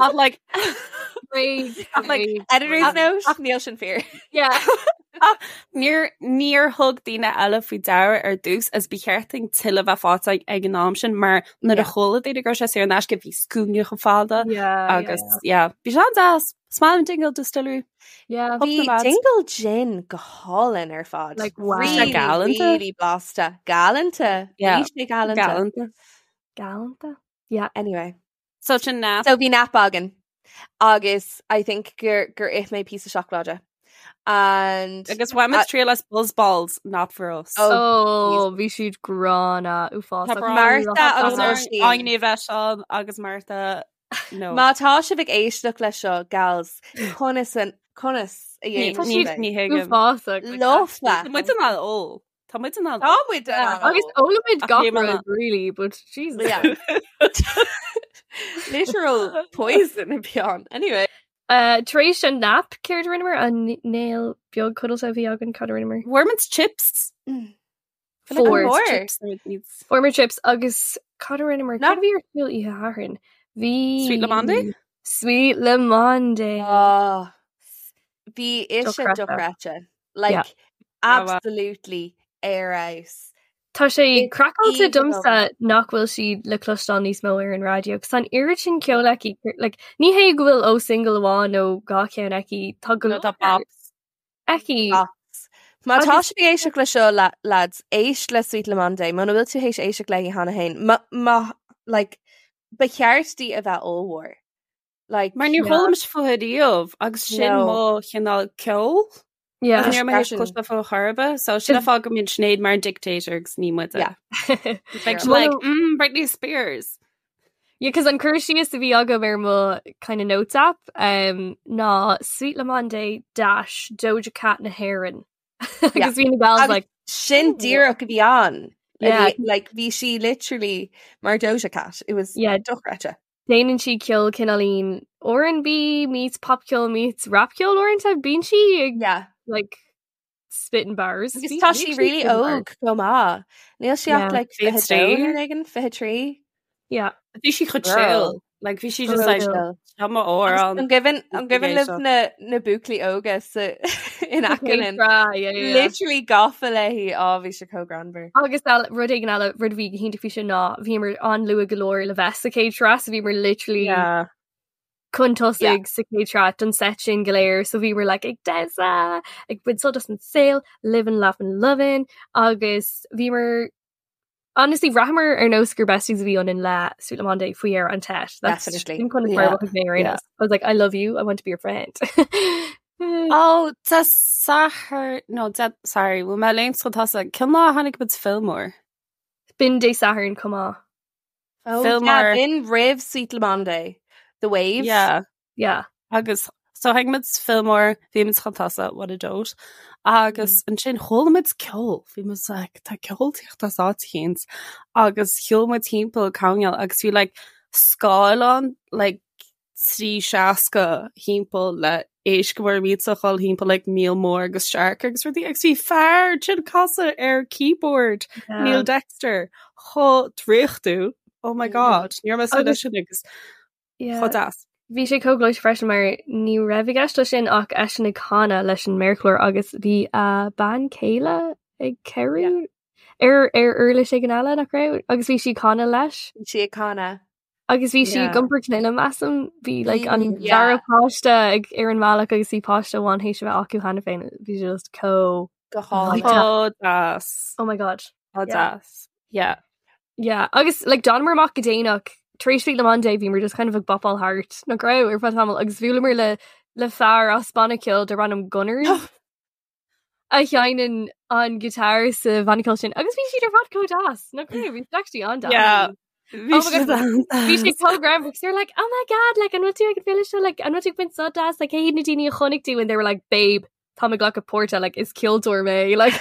Ach like Rage, Ach, like, rage. Editor's note, níl sin fíor. Yeah. Níor níor thug daoine eile faoi deara ar dtús is ba cheart dúinn tuilleadh bheith faighte ag an am sin mar nuair a chuala daoine go raibh sé saor in aisce bhí scuaine chomh fada Yeah, agus yeah, bhí sé an-deas. Is maith liom Dingle Distillery. Yeah. Hope Bhí the lads. Dingle Gin go hálainn ar fad. Like, wow. Really, Galanta. really blasta. Galanta. Yeah. Bhí sé galanta. Galanta. Galanta. Yeah. Anyway. So sin nap. So bhí nap againn. Agus I think gur gur ith mé píosa seacláide. And Agus bhain muid triail as Buzz Balls, not for us. Oh, Oh, bhí siad gránna uafásach. Tá brón Martha agus Tá Oisín. Áine bheith ann agus Martha no. Má tá sibh ag éisteacht leis seo gals conas an conas a Ní Tá dhéanann siad sibh é? ní thuigim. Uafásach. like, Lofa. Tá muid in ann ól. Tá muid in ann Tá muid in ann Agus ól. ólaimid Ach gach níl mé rud, really, but Jesus. Yeah. Literal poison and beyond. Anyway. Tar éis an nap céard a rinneamar an néal beag codlata a bhí againn cad a rinneamar? Fuair muid chips. Fuair. Fuair. Chips nuair níos. Fuair muid chips agus cad a rinneamar? No. Cad a bhí ar siúl oíche Shathairn? Bhí Sweet Le Monde? Sweet Le Monde. Oh, bhí ise Dochreidte. dochreidte. Like Yeah. absolutely ar fheabhas. Tá sé It's craiceáilte aoibhinn domsa liom. nach bhfuil sí le cloisteáil níos mó ar an raidió, 'cause tá an oiread sin ceoil aici, like, ní hé go bhfuil ó single amháin nó dhá cheann aici, tá go No, tá leor bops. aici. Bops. Má tá Agus- sibh ag éisteacht le seo la- lads, éist le Sweet Le Monde, muna bhfuil tú théis éisteacht léi cheana féin, ma, ma, like, ba cheart di a bheith ollmhór. Like, Mar níor Yeah. chuala mise fúithi riamh agus sin No. mo chineál ceoil. Yeah. Agus níor mé Freisin. cloiste fúithi chor ar bith, so sin an fáth go mbíonn Sinéad mar an dictator agus ní muide. Yeah. Like, Well, like, mm, Britney Spears. Yeah, cos an cur síos a bhí agam ar mo kind of notes app um, ná Sweet Le Monde dash Doja Cat na hÉireann. Agus bhí na gals Agus like sin díreach a bhí ann. Yeah. Bhí- Like, bhí sí literally mar Doja Cat. It was Yeah. dochreidte. Déanann sí ceol cineáilín R&B meets pop ceol meets rap ceol uaireanta bíonn sí ag Yeah. like spitting bars. Agus Bhí- tá bhí sí sí really spitting bars. óg chomh maith. Níl sí ach Yeah. like 23. 22 nó éigin, 23. Yeah. Bhí sí chomh Girl. chill. Like, bhí sí just like, Chill. Tá mo amhrán. An gcuimhin an gcuimhin libh éisteacht. na na buachaillí óga sa in aice linn? Yeah, yeah, yeah. Literally gafa léi á bhí sé chomh greannmhar. Agus eile rud éigin eile rud a bhí go hiontach faoi sin ná bhíomar an-luath go leor le bheith sa chéad sraith, so bhíomar literally Yeah. chun tosaigh sa chéad sraith don set sin go léir, so bhíomar like ag damhsa, ag baint sult as an saol, living, laughing, loving, agus bhíomar honestly bhraitheamar ar nós gur besties a bhí ionainn le Sweet Le Monde faoi dheireadh an tset. That's Definitely. sin conas mar Yeah. a mhothaigh mé ar aon Yeah. nós. I was like, I love you, I want to be your friend. Oh, Dé Sathairn no Dé sorry, bhfuil mé léim chun tosaigh. Cén lá a tháinig muid Fillmore? B'in Dé Sathairn chomh maith. Oh, Fillmore. yeah, b'in roimh Sweet Le Monde. The Wave. Yeah. Yeah. Agus so tháinig muid Fillmore, bhí muid chun tosaigh, what a dote. Agus ansin chuala muid ceol, bhí muid like, tá ceol ag teacht as áit éicint. Agus shiúil muid timpeall coirnéal agus bhí like scáileán like 360 timpeall le éisc mór millteach ag dul timpeall like míol mór agus shark agus rudaí agus bhí fear ag casadh ar keyboard Yeah. Neil Dexter chomh draíochtúil. Oh my god, níor mé Agus- sin agus Yeah. chomh deas. Bhí sé chomh gleoite freisin mar ní raibh i gceist leis sin ach eisean ag canadh leis an méarchlár agus bhí a bean chéile ag cabhrú ar ar uirlis éigin eile nach raibh agus bhí sí ag canadh leis. Bhí sí ag canadh. Agus bhí sí Yeah. ag iompar clainne measaim bhí like an Yeah. dara páiste ag ar an mbealach agus bhí páiste amháin théis a bheith acu cheana féin. Bhí sé just chomh Go hálainn. Chomh deas. Oh my god. Chomh Yeah. deas. Yeah. Yeah, agus like d'fhanamar amach go déanach tar éis Sweet Le Monde bhíomar just kind of ag bopáil thart nach raibh ar feadh tamaill agus bhuaileamar le le fear as banna ceoil darb ainm Gunners a sheinneann an guitar sa bhanna ceoil sin agus bhí siad ar fad chomh deas nach raibh bhí siad actually an-deas. Yeah. Bhí Oh my siad God. Bhí sé an-deas. chomh greannmhar because they were like, oh my god, like an bhfuil tú ag an bhféile seo, like an bhfuil tú ag baint sult as, like cé hiad na daoine a chonaic tú and they were like, babe, tá mé ag glacadh páirte, like is ceoltóir mé, like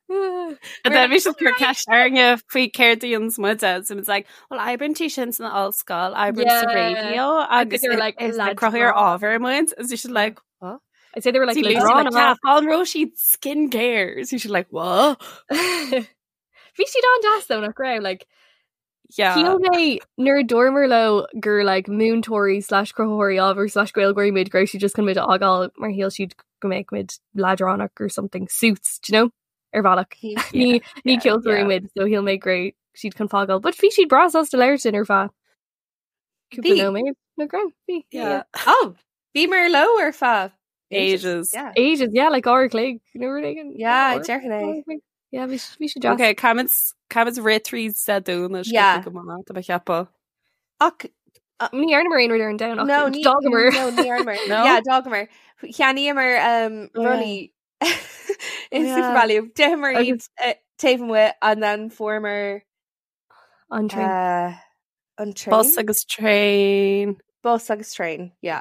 And then bhí siad ag cur ceist orainne faoi céard a dhéanann muide so it's like, well oibríonn sí sin san ollscoil, oibrím sa Yeah. raidió agus they were like, is like lads cruthaitheoir bra. ábhair muid, and bhí siad like, what? I'd say they were like See, Lucy, like, yeah, an raibh siad skincare. So she's like, what? Bhí siad an-deas though nach raibh like Yeah. Shíl mé nuair a dúramar leo gur like múinteoirí slash cruthaitheoirí ábhair slash Gaeilgeoirí muid go raibh siad just chun muid a fhágáil mar shíl siad go mbeadh muid leadránach or something suits, do you know? Ar bhealach. Ní ní yeah, ceoltóirí yeah. muid so shíl mé go raibh siad chun fágáil, but bhí siad breá sásta labhairt linn ar feadh cúpla Bhí. nóiméad nach raibh? Bhí. Yeah. Oh, bhíomar leo ar feadh Ages. Yeah. Ages, yeah, like uair a chloig nó rud éigin. Yeah, Uair- déarfainn é. uair a chloig. Yeah, bhí bhí sé deas. Okay, caithfimid caithfimid rith tríd Dé Domhnaigh Yeah. go maith, tá mé ag ceapadh. Ach Ní dhearnamar aon rud ar an Domhnach. no, ní D'fhágamar. No, ní dhearnamar. No? Yeah, d'fhágamar. Cheannaíomar um, Oh, yeah. rudaí in Yeah. SuperValu. D'itheamar iad Agus- eh, taobh amuigh and then fuaireamar An traein. uh, an traein? Bus agus traein. Bus agus traein, yeah.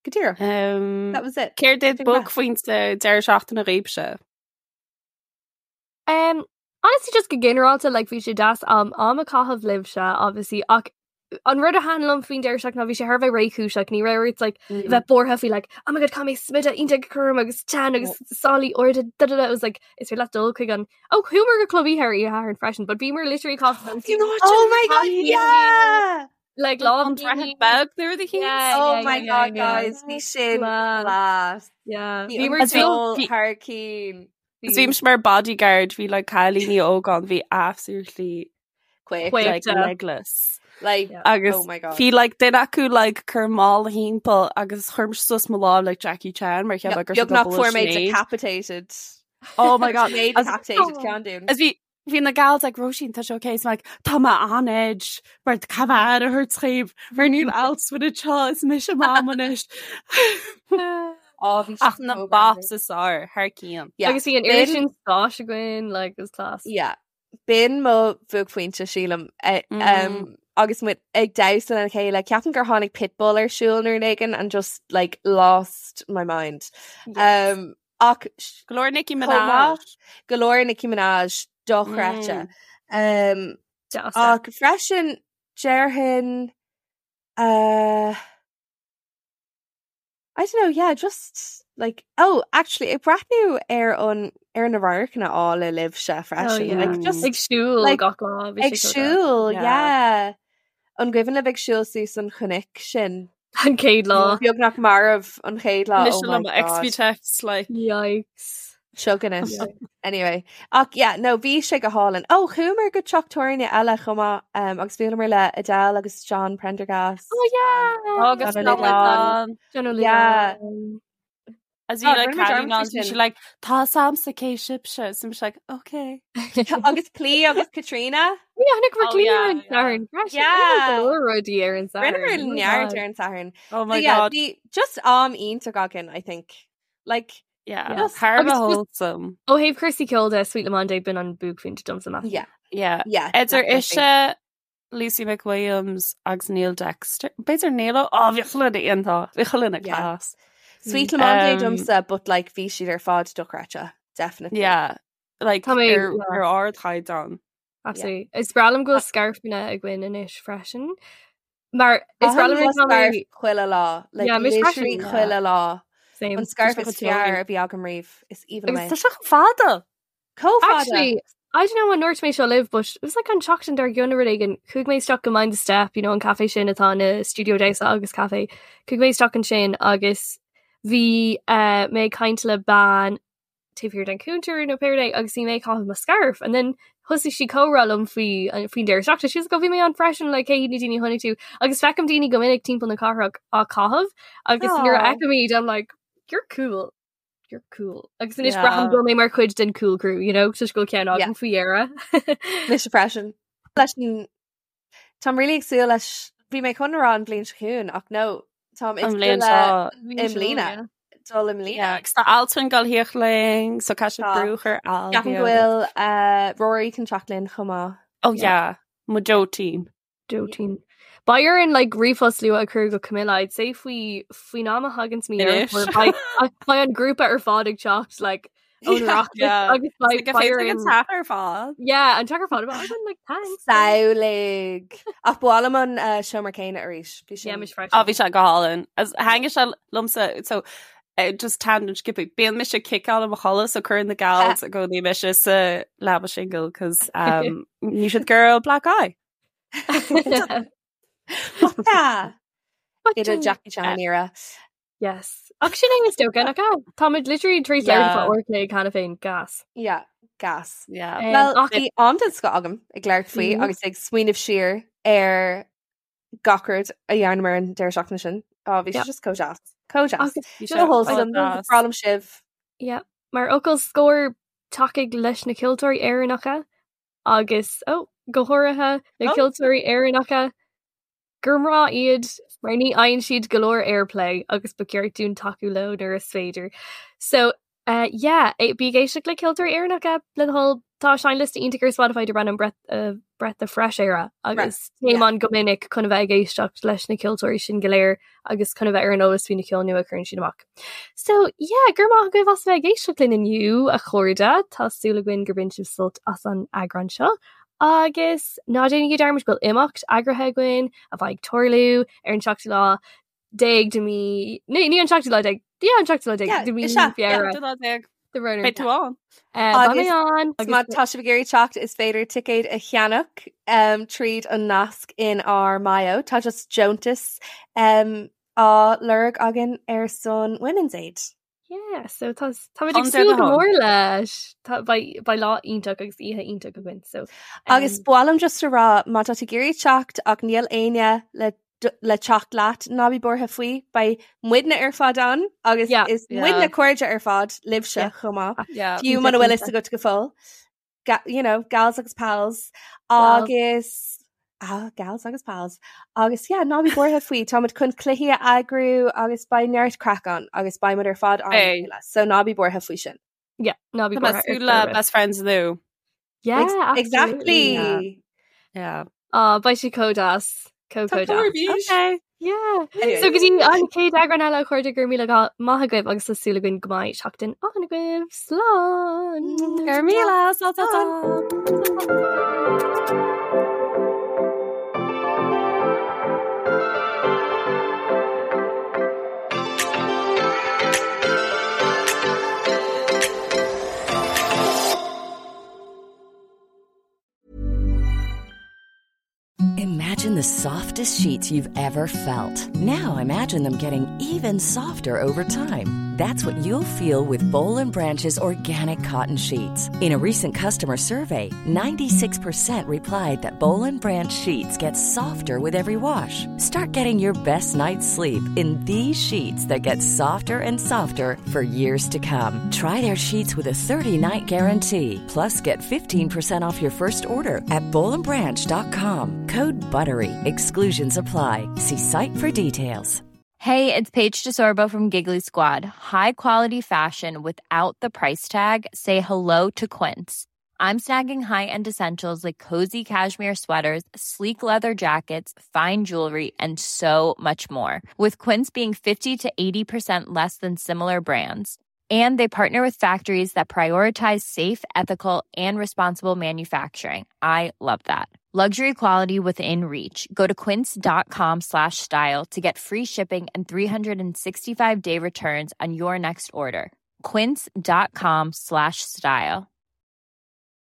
Go díreach. Um, That was it. Céard iad Sin maith. buaicphointe deireadh seachtaine dhaoibhse? Um, honestly, just go ginearálta, like, bhí sé deas am am a chaitheamh libhse, obviously, ach an rud a thaitin liom faoin deireadh seachtaine ná bhí sé thar a bheith réchúiseach, ní raibh ort like, Mm. bheith buartha faoi like, oh my god, caithfidh mé smideadh iontach a chur orm agus teann agus sálaí arda, da da da, it was like, is féidir leat dul chuig an, oh, chuamar go club oíche ar oíche Shathairn freisin, but bhíomar literally caitheamh You know what? Oh my god, yeah! like lá An Droichead Beag nuair a Yeah, Oh yeah, my yeah, god, yeah. guys, bhí sin Class. class. Yeah. Bhí Bhíomar an As bhí- ceol bhí- thar cinn. Is bhí mar bodyguard bhí like cailíní óga ann bhí absolutely Quick. Quick. like Yeah. legless. Like, Yeah. Agus oh my god. bhí like duine acu like cur mála timpeall agus chuir mise suas mo lámh like Jackie Chan mar cheap gur Beag nach fuair mé decapitated. Oh my god. Mé As- decapitated ceann dúinn. As bhí bhí na gals like Róisín tá sé okay is like tá mé on edge mar caithfidh mé aire a thabhairt dhaoibh mar níl alts with a seo is mise mam anois. Oh, bhí Ach sé na so bops is fearr thar cionn. Yeah. Agus bhí an B'in- oiread sin spáis againn, like, it was class. Yeah. B'in mo bhuaicphointe sílim eh, Mm. um, agus muid ag damhsa lena chéile ceapaim gur tháinig Pitbull ar siúl nuair éigin and just like lost my mind. Um, ach Go leor Nicki Chomh Minaj. maith. go leor Nicki Minaj dochreidte. Um, Deas. ach freisin déarfainn uh, I don't know, yeah, just like oh, actually ag breathnú ar an ar na radharcanna áille libhse freisin. yeah. Like just Ag siúl like, gach lá. bhí ag sé so deas. siúl, Yeah. yeah. An gcuimhin libh ag siúl suas an chnoc sin. An chéad lá. Beagnach marbh an chéad lá. Mise Oh le my mo God. XBTX like Yikes. Seo Yeah. Anyway, ach yeah, no, bhí sé go hálainn. Ó chuamar go teach tábhairne eile chomh maith um, agus bhuaileamar le Adele agus John Prendergast. Oh yeah. Agus John John O'Loughlin. John O'Loughlin. Yeah. As Oh, bhí like rinne muid cailín dearmad ann, faoi bhí sin. sí like tá samsa cé sibse so I'm like okay. Agus Clí agus Katrina. Yeah, chonaic Oh, Clí yeah, ar an yeah. Satharn freisin. Yeah. Rinne go leor rudaí ar an Satharn. Rinneamar Oh my neart God. ar an Satharn. Oh So my yeah, god. bhí just am iontach againn, I think. Like Yeah. Yeah. Thar a Agus bheith just- wholesome. Ó thaobh cúrsaí ceoil de Sweet Lemon b'in an buaicphointe domsa measaim. yeah, Yeah. yeah. Idir definitely. ise Lucy McWilliams agus Neil Dexter. B'fhéidir Neil ó oh, bhí chuile iontach bhí chuile Yeah. class. Sweet Lemon Um, domsa, but like bhí siad ar fad dochreidte, definitely. Yeah. Like Tá mé- ar yeah. ar ardchaighdeán. Absolutely. Is breá liom go bhfuil scairfeanna againn anois freisin. Mar is breá Caithim liom mo tá mé- scarf chuile lá, like Yeah, mise literally freisin, yeah. chuile lá. Same. An scarf Tá sé is chomh fearr teorainn. a bhí agam riamh is even Agus tá sé chomh fada. Chomh fada. Actually, I don't know an ndúirt mé seo libh, but it was like an seachtain dár gcionn rud éigin. Chuaigh mé isteach go Mind the Step, you know, an café sin atá ina studio damhsa agus café. Chuaigh mé isteach ansin agus bhí uh, mé ag caint le bean taobh thiar den cuntar nó pé rud é agus bhí mé ag caitheamh mo scarf and then thosaigh sí comhrá liom faoi an- faoin deireadh seachtaine. She was like, "Oh, bhí mé ann freisin like cé hiad na daoine a chonaic tú agus feicim daoine go minic timpeall na cathrach á caitheamh agus nuair a Aw. fheicim iad I'm like you're cool. You're cool. Agus anois Yeah. braithim go bhfuil mé mar chuid den cool crew, you know, toisc go bhfuil ceann Yeah. agam faoi dheireadh. Mise freisin. Leis an Táim really ag súil leis bhí mé chun rá an bhliain seo chugainn ach no táim ag An súil bhliain le seo. i mbliana. Dul i mbliana. Yeah, agus tá Altan ag gabháil a theacht linn, so caithfidh Tá. brú a chur ar Al. Ceapaim go bhfuil uh, Rory chun teacht linn chomh maith. Oh yeah, mo Joe-team. Joe-team. Beidh orainn like ríomhphost luath a chur go Camilla, I'd say faoi faoin am a thagann mí Anois. beidh an grúpa ar fad ag teacht like ón Yeah. Oireachtas Yeah. agus beidh Like, beidh an orainn- teach ar fad. Yeah, an teach ar fad about like thanks. Samhlaigh. Ach ba mhaith liom an uh, seomra céanna arís. Bhí Yeah, sin- mise freisin. Á bhí sé go hálainn. As thaitnigh sé liomsa so Just tangent skipping. Bíonn mise ag ciceáil i mo chodladh so cuireann na gals i gcónaí mise sa leaba singil cos um, níl siad ag iarraidh black eye. Idir Jackie Chan era. Yes. Ach sin é is dócha nach ea? Táimid literally tar éis labhairt fá uair an chloig cheana féin gas. Yeah, gas. Yeah. Um, Well, ach bhí am den scoth agam ag labhairt faoi Mhm. agus ag smaoineamh siar ar gach rud a dhearnamar an deireadh seachtaine sin. Á, bhí sé Yeah. just chomh deas. Chomh deas. Agus Bhí Go sé wholesome. deas. Breá liom sibh. Yeah. Mar fhocal scoir tacaigh leis na ceoltóirí Éireannacha agus oh, go háirithe na Oh. ceoltóirí Éireannacha gur mná iad mar ní fhaigheann siad go leor airplay agus ba cheart dúinn tacú leo nuair is féidir. So uh, yeah, eh, bí ag éisteacht le ceoltóirí Éireannacha le do thoil tá seinnliosta iontach ar Spotify darb ainm Breath, uh, Breath of Fresh Air agus téim yeah. ann go minic chun a bheith ag éisteacht leis na ceoltóirí sin go léir agus chun a bheith ar an eolas faoi na ceol nua a chuireann siad amach. So yeah, go raibh maith agaibh as a bheith ag éisteacht linn inniu a chairde, Tá súil againn gur bhain sibh sult as an eagrán seo. Agus ná déanaigí dearmad go bhfuil imeacht eagraithe againn a bheidh ag tarlú ar an seachtú lá déag de mí ní ní an seachtú lá déag yeah, an seachtú lá déag Yeah, de mí is ea, yeah. Feabhra. Seachtú lá déag. De runner. Beidh tú ann. Eh, Beidh mé Agus ann má tá sibh ag iarraidh teacht is féidir ticéid a cheannach um, tríd an nasc in ár mbio. Tá just deontas um, á lorg againn ar son Women's Aid. Yeah, so tá táimid ag Under súil the go home. mór leis. Tá beidh beidh lá iontach agus oíche iontach againn so Agus um, ba mhaith liom just a rá má tá tú ag iarraidh teacht ach níl éinne le le teacht leat ná bí buartha faoi, beidh muidne ar fad ann agus Yeah. is Yeah. muidne cairde ar fad libhse Yeah. chomh maith. Yeah. Fiú muna bhfuil fhios agat go fóill. Ga you know, gals agus pals Gals. agus ah, gals agus pals agus yeah, ná bí buartha faoi táimid chun cluichí a eagrú agus beidh neart craic ann agus beidh muid ar fad ann le Beidh. chéile. So ná bí buartha faoi sin. yeah, ná bí Tá mé buartha ar súil chor le ar bith. best friends nua. Yeah, Ex absolutely. exactly. Yeah. Ah, beidh sé chomh deas. Chomh Tá chomh deas. bís. Okay. Yeah. Anyway. So go dtí an chéad eagrán eile a chairde go raibh míle maith agaibh agus tá súil againn go mbeidh seachtain álainn agaibh. Slán! Go raibh míle, slán, slán, slán. Imagine the softest sheets you've ever felt. Now imagine them getting even softer over time. That's what you'll feel with Boll and Branch's organic cotton sheets. In a recent customer survey, 96% replied that Boll and Branch sheets get softer with every wash. Start getting your best night's sleep in these sheets that get softer and softer for years to come. Try their sheets with a 30-night guarantee. Plus, get 15% off your first order at bollandbranch.com. Code BUTTERY. Exclusions apply. See site for details. Hey, it's Paige DeSorbo from Giggly Squad. High quality fashion without the price tag. Say hello to Quince. I'm snagging high-end essentials like cozy cashmere sweaters, sleek leather jackets, fine jewelry, and so much more. With Quince being 50 to 80% less than similar brands. And they partner with factories that prioritize safe, ethical, and responsible manufacturing. I love that. Luxury quality within reach. Go to quince.com slash style to get free shipping and 365 day returns on your next order. Quince.com slash style.